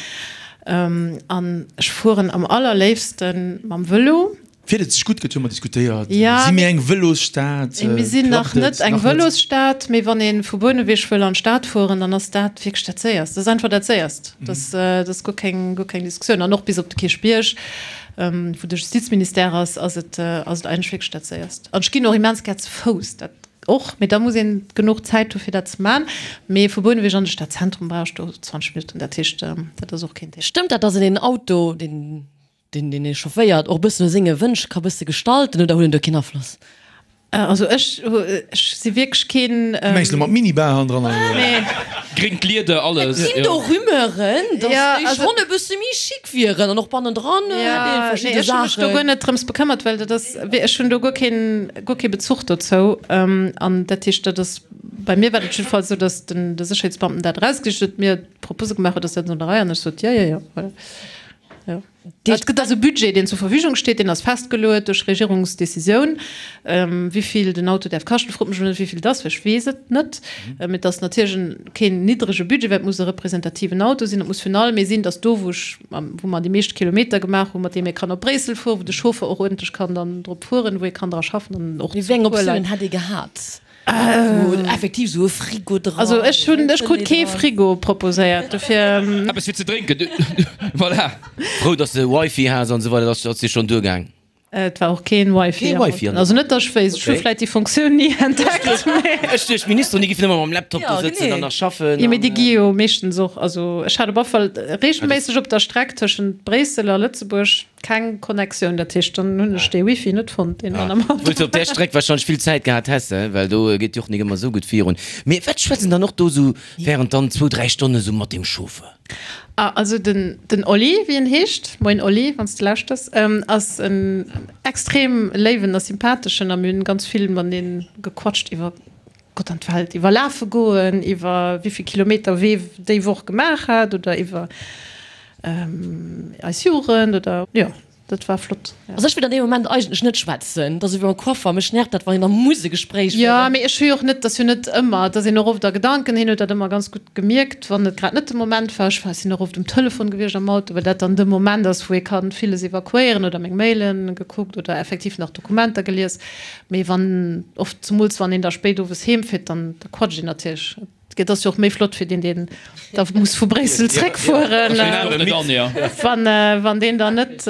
An ech fueren am allerléifste mam Vëlo. Fiert et sech gutt, gëtt jo ëmmer diskutéiert. Si mir eng Vëlosstad? Mir sinn nach net eng Vëlosstad, mee wann ee vu Bouneweg wëll an d'Stad fueren, dann ass dat wierklech dat Séierst. Dat ass einfach dat Séierst. Dat ass guer keng, guer keng Diskussioun. An och bis op de Kierchbierg. Wou de Justizministère ass, ass et ass et eigentlech wierklech dat Séierst. An ech ginn och immens gär ze Fouss, dat och, mee da muss een genuch Zäit hu fir dat ze man. Mee vu Bouneweg an de Stadzentrum brauch ech do 20 Minutten, dat heescht, dat ass och keen Thema. Stëmmt dat, dass een een Auto, deen deen ee chaufféiert, och e bëssen no senge Wënsch ka bësse gestalten oder huet en do keen Afloss? Also ech ech si wierklech keen. Du mengs lo mat Minibar hannendran an esou? Nee. Gréngt Lieder, alles. Et ginn do Rumeuren, dass déi schonn e bësse méi chic wieren an och bannendran hätt ee verschidde Saachen. Ech hu mech do guer net drëms bekëmmert, well dat ass, ech hunn do guer keen, guer kee Bezuch dozou. An dat heescht, dat ass, bei mir war dat jiddefalls esou, dass den de Sécherheetsbeamten dat erausgesicht huet, mir d'Propose gemaach huet, ass dat an der Rei? An ech sot, jo, jo, jo, voilà. Jo. Et gëtt also e Budget, deen zur Verfügung steet, deen ass festgeluet duerch Regierungsdecisioun, wéi vill den Auto däerf kaschten. Frot mech elo net, wéi vill et ass, well ech weess et net. Mee et ass natierlech en, keen niddrege Budget, well et muss e representativen Auto sinn. Et muss virun allem ee sinn, dass do, wou ech, wou mer déi meescht Kilometer gemaach hunn, mat deem ee kann op Bréissel fueren, wou de Chauffer och uerdentlech kann dann drop fueren, wou ee kann dra schaffen an och Mee wéi eng Optiounen hätt ee gehat? Wou effektiv sou e Frigo dran. Also ech hunn, ech krut kee Frigo proposéiert, dofir. Eppes fir ze drénken, voilà. Frou dass de Wifi has an esou weider, dat ass dir schonn duergaang. Et war och keen Wifi Kee Wifi an also net dass ech wéisst, ech hu vläit déi Funktioun ni entdeckt, mee. Ech duecht d'Ministeren déi giffen ëmmer mam Laptop do sëtzen an nach schaffen. Jo mee déi gi jo meeschtens och, also ech hat op alle Fall reegelméisseg op der Streck tëschent Bréissel a Lëtzebuerg Keng Connectioun, dat heescht dann hunn ech dee Wifi net fonnt deen dann am Auto. Wou s de op där Streck wahrscheinlech vill Zäit gehat häss, he, well do geet jo och nik ëmmer esou gutt virun. Mee wat schwätzt en dann och do esou während dann zwou, dräi Stonne esou mat deem Chauffeur? Ah, also den den Oli, wéi en heescht, moien Oli, wann s de lauschters, ass en extrem léiwen a sympatheschen a mir hunn ganz vill matenee gequatscht iwwer Gott an d'Welt, iwwer lafe goen, iwwer wéivill Kilometer wee déi Woch gemaach hat oder iwwer eis Jugend oder jo. Dat war flott. Also ech wëll an deem Moment eigentlech net schwätzen, dat ass ewéi beim Coiffer, mech nervt dat wann een da muss e Gespréich Jo, féieren. mee ech hu jo och net, et ass jo net ëmmer, et ass een och oft a Gedanken, hien huet dat ëmmer ganz gutt gemierkt, wann et grad net de Moment war. Ech war, sinn och oft um Telefon gewiescht am Auto, well dat dann de Moment ass, wou ee ka villes evakuéieren oder meng Mailen gekuckt oder effektiv nach Dokumenter gelies. Mee wann, oft, zemools wann een da spéit owes heem fiert, dann da quatscht een natierlech. Et ass jo och méi flott fir deen, deen da muss vu Bréissel zréckfueren, wann deen dann net,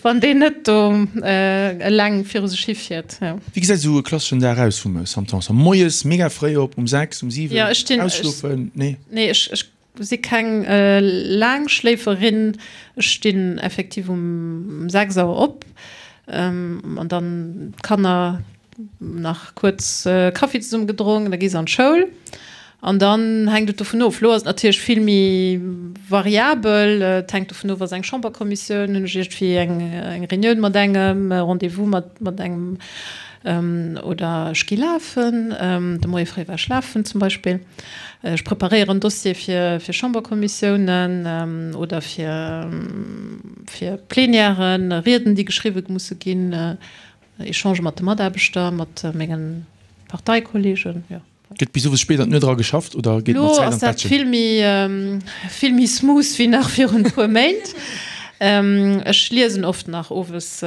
wann deen net do eleng viru sech hifiert. Wéi gesäit esou e klasseschen Dag aus vum Sam Tanson? Moies mega fréi op, um 6, um 7, ausschlofen? Nee? Nee, ech si keng Laangschléiferin. Ech stinn effektiv um 6 Auer op an dann d'Kanner nach kuerz Kaffi zesumme gedronk, da gi se an d'Schoul an dann hänkt et dovun of. Elo ass et natierlech vill méi variabel, et hänkt dovun of, ass eng Chamberkommissioun, hunn ech iergendwéi eng eng Reunioun mat engem, e Rendez-vous mat mat engem oder ech gi lafen, de Moie fréi war ech lafen zum Beispill. Ech preparéieren Dossiere fir fir Chamberkommissiounen oder fir fir Plenièren, Rieden déi geschriwwe musse ginn. Echange mat de Mataarbechter, mat menge Parteikolleegen, jo. Gëtt bis owes spéit an d'Nuet era geschafft oder geet mat Elo Zäit ass an dat d'Bettchen? vill méi, vill méi smooth wéi nach virun e puer Méint. Ech liesen oft nach owes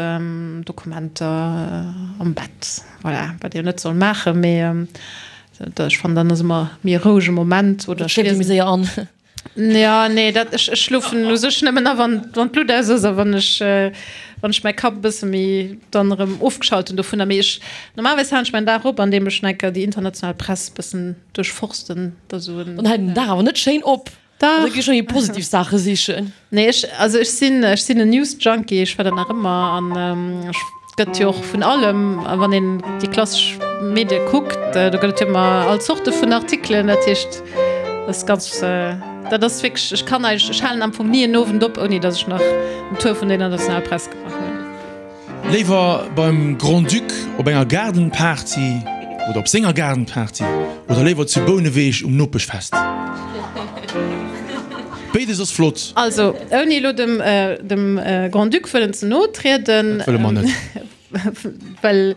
Dokumenter am Bett, voilà, wat ee jo net soll maachen, mee ech fannen, dann ass ëmmer méi e rouege Moment oder Et ech schléift ee méi liesen. séier an. Ja, nee, dat, ech, ech schlofen u sech nëmmen a wann, wann d'Luut aus ass a wann ech, wann ech mäi Kapp e bësse méi dann erëm ofgeschalt hunn dovunner. Mee ech, normalerweis halen ech mäin Dag op, andeem ech nach eng Kéier déi international Press bëssen duerchforsten, da sou en. Dann hält den Dag awer net schéin op. Dach. Da gi ech méi positiv Saache sichen. Nee, ech, also ech sinn, ech sinn en News-Junkie, ech war dat nach ëmmer an ech. Gëtt jo och vun allem, a wann een déi klassesch Medie kuckt, do gëtt et jo ëmmer all Zorte vun Artikelen. Dat heescht, dat ass ganz, dat ass wierklech, ech kann eigentlech, ech halen am Fong ni en Owend op, ouni datt ech nach en Tour vun der internationaler Press gemaach hunn. Léiwer beim Grand-Duc op enger Gaardenparty oder op senger Gaardenparty oder léiwer zu Bouneweg um Nopeschfest? Béides ass flott. Also, ouni elo dem, dem Grand-Duc wëllen ze no trieden. Dat wëlle mer net. Well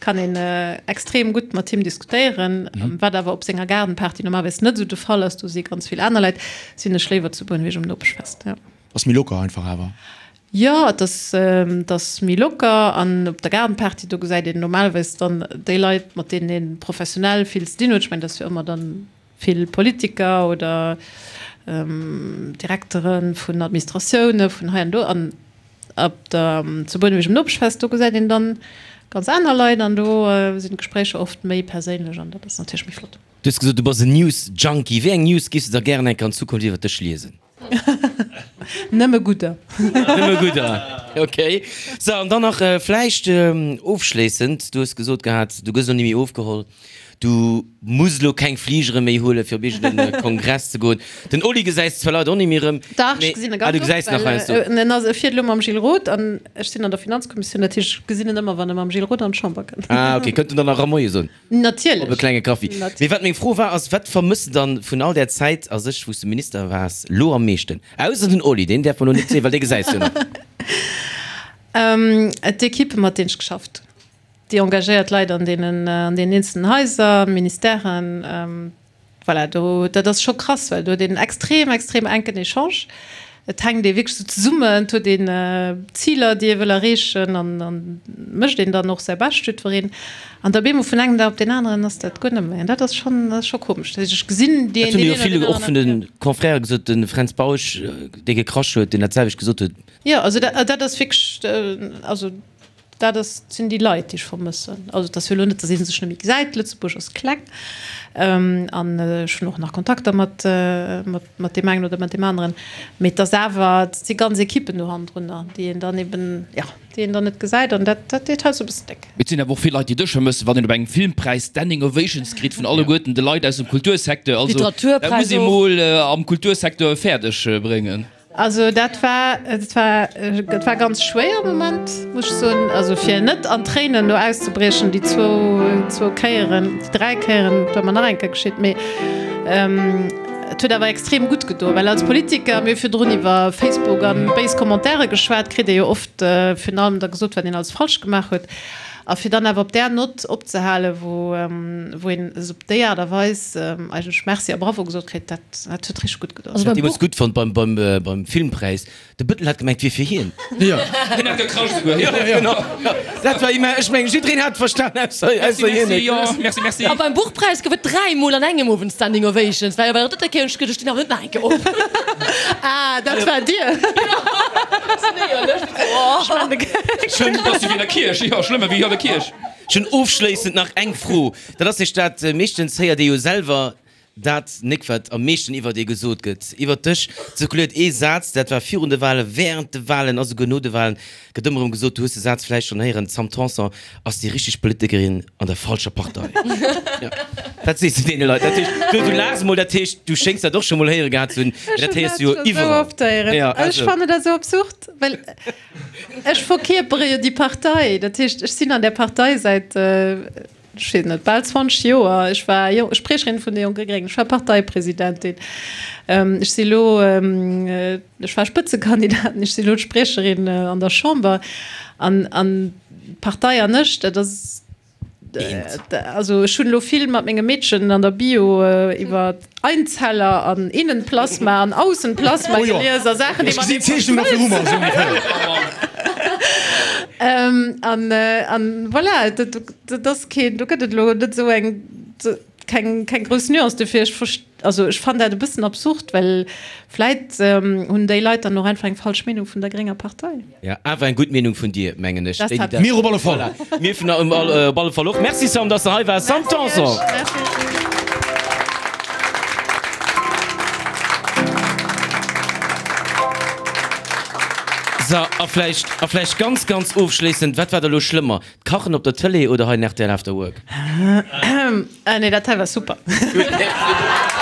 kann een extrem gutt mat him diskutéieren, wat awer op senger Gaardenparty normalerweis net esou de Fall ass, do si ganz vill aner Leit, sinn ech léiwer zu Bouneweg um Nopeschfest, jo. Ass méi locker einfach awer. Jo, et ass, et ass méi locker an op der Gaardenparty, do gesäit een normalerweis dann déi Leit, mat deenen ee professionell vill ze dinn huet. Ech mengen, dat ass jo ëmmer dann Vill Politiker oder Direktere vun Administratioune vun hei an do. An op der, zu Bouneweg um Nopeschfest, do gesäit een dann ganz aner Leit an do sinn d'Gespréicher oft méi perséinlech an dat ass natierlech méi flott. Du hues gesot, du bass en News-Junkie. Wéi eng News giffs de da gären eng Kéier an Zukunft iwwer dech liesen? Nëmme gudder. Nëmme gudder, ok. Sou, an dann nach vläicht ofschléissend, du hues gesot gehat, du gëss elo ni méi ofgeholl, du muss elo keng Fligere méi huelen, fir op iergendee Kongress ze goen. Den Oli gesäis de zwar leider och ni méi erëm, Dach, mee ech gesinn e ah, ganz du gesäis oft, nach well heiansdo. en ass, e fiert elo mam Gilles Roth an ech sinn an der Finanzkommissioun, dat heescht, ech gesinn en ëmmer, wann e mam Gilles Roth an d'Chamber kënnt. Ah, ok, kënnt en dann nach erëm Moie soen? Natierlech. Op e klenge Kaffi. Mee wat meng Fro war, ass, Wat vermëss de dann vun all där Zäit a sech, wou s de Minister waars, lo am meeschten? Ausser den Oli, deen däerf mer lo net soen, well dee gesäis jo nach. D'Ekippe mat deenen ech geschafft hunn, déi engagéiert Leit an deenen, an deenen eenzelnen Haiser, Ministèren. Voilà, do, dat ass scho krass, well do huet een extrem, extrem enken Echange. Et hänkt ee wierklech sou zesummen, et huet een Ziler, déi ee wëll erreechen an an mécht een dann och säi Bescht, jiddwereen. An da bemol vun engem Dag op deen aneren ass dat guer net méi. An dat ass schonn, dat ass scho komesch. Dat heescht, ech gesinn deen, Dat hunn deen jo een oder vill deen och vun aneren. de Confrèrë gesot, de Fränz Bausch, dee gekrasch huet, deen dat selwecht gesot huet. Jo, also dat, dat ass wierklech, also Dat ass, sinn déi Leit, déi ech vermëssen. Also et ass jo elo net, datt ee sech net méi gesäit. Lëtzebuerg ass kleng an ech hunn och nach Kontakter mat, mat deem engen oder mat deem aneren. Mee et ass awer, et si ganz Ekippen do hannendrunner, déi een dann eben, jo, déi een dann net gesäit an dat, dat deet heiansdo e bëssen déck. Et sinn awer och vill Leit, déi dech vermëssen, wann een op engem Filmpräis Standing Ovations kritt vun alleguerten de Leit aus dem Kultursecteur. Also dat muss ee mol am Kultursecteur fäerdeg bréngen. Also dat war, et war, et war ganz schwéier am Moment, muss ech soen. Also fir net an Tréinen do auszebriechen, déi zwou, zwou Kéieren, déi dräi Kéieren, et war mer nach eng Kéier geschitt, mee. Et huet awer extrem gutt gedoen, well als Politiker, mir hu virdrun iwwer Facebook an béis Commentaire geschwat, kritt ee jo oft virun allem da gesot, wat een alles falsch gemaach huet. A fir dann awer op där Nott opzehalen, wou wou een esou op déi Aart a Weis eigentlech Merci a Bravo gesot kritt, dat dat huet richteg gutt gedoen. Ech hat deemools gutt fonnt beim beim beim Filmpräis, de Bëttel hat gemengt, et wier fir hien. Jo. Hien hat gekrasch esouguer. Jo, genau. Dat war immens, ech mengen, jiddereen hat et verstan, ausser Merci, ausser hien merci, net. jo, merci, merci. A beim Buchpräis gouf et dräimol an engem Owend Standing Ovations, well bei der drëtter Kéier hunn ech geduecht, ech stinn awer net nach eng Kéier op. Ah, dat war Dir. Schlëmm ass wéi an der Kierch, jo, schlëmmer wéi an der Kierch. Ech hunn ofschléissend nach eng Fro. Dat ass nämlech dat, meeschtens héiert ee jo selwer dat nek, wat am meeschten iwwert ee gesot gëtt. Iwwert dech zirkuléiert ee Saz, dat war virun de Walen, während de Walen a souguer no de Walen, gëtt ëmmer erëm gesot, du hues de Saz vläicht schonn héieren, d'Sam Tanson ass déi richteg Politikerin an der falscher Partei. Jo, dat sees du deene Leit. Dat heescht, du, du laachs emol, dat heescht, du schéngs dat och scho mol héiere gehat ze hunn, mee dat héiers du jo iwwerall. Jo, also. Ech fannen dat esou absurd. Well ech verkierpere jo déi Partei. Dat heescht, ech sinn an där Partei säit, ech weess net, bal 20 Joer. Ech war Spriecherin vun de Jonke Gréngen, ech war Parteipresidentin, ech si elo, ech war Spëtzekandidatin, ech si elo d'Spriecherin an der Chamber. An d'Partei an ech, dat ass. Also ech hunn elo vill mat mengem Meedchen an der Bio iwwer Einzeller an Innenplasma an Aussenplasma gelies a Saachen, déi matenee verschmëlzen. An an voilà, dat ass keen, do gëtt et elo net esou eng, keng keng grouss Nuance. Dofir ech verst, also ech fannen dat e bëssen absurd, well vläit hunn déi Leit dann och einfach eng falsch Meenung vun der grénger Partei. Ja, awer eng gutt Meenung vun dir, mengen ech. Dat hat Mir op alle Fall. Voilà. Mir vun op alle Fall och. Merci Sam, dass de hei waars. Sam Tanson. Merci. So, a vläicht, a vläicht ganz, ganz ofschléissend, wat war da lo schlëmmer, d'Kachen op der Tëlee oder hei den rtl After Work? Ah nee, dat hei war super. Gutt, merci.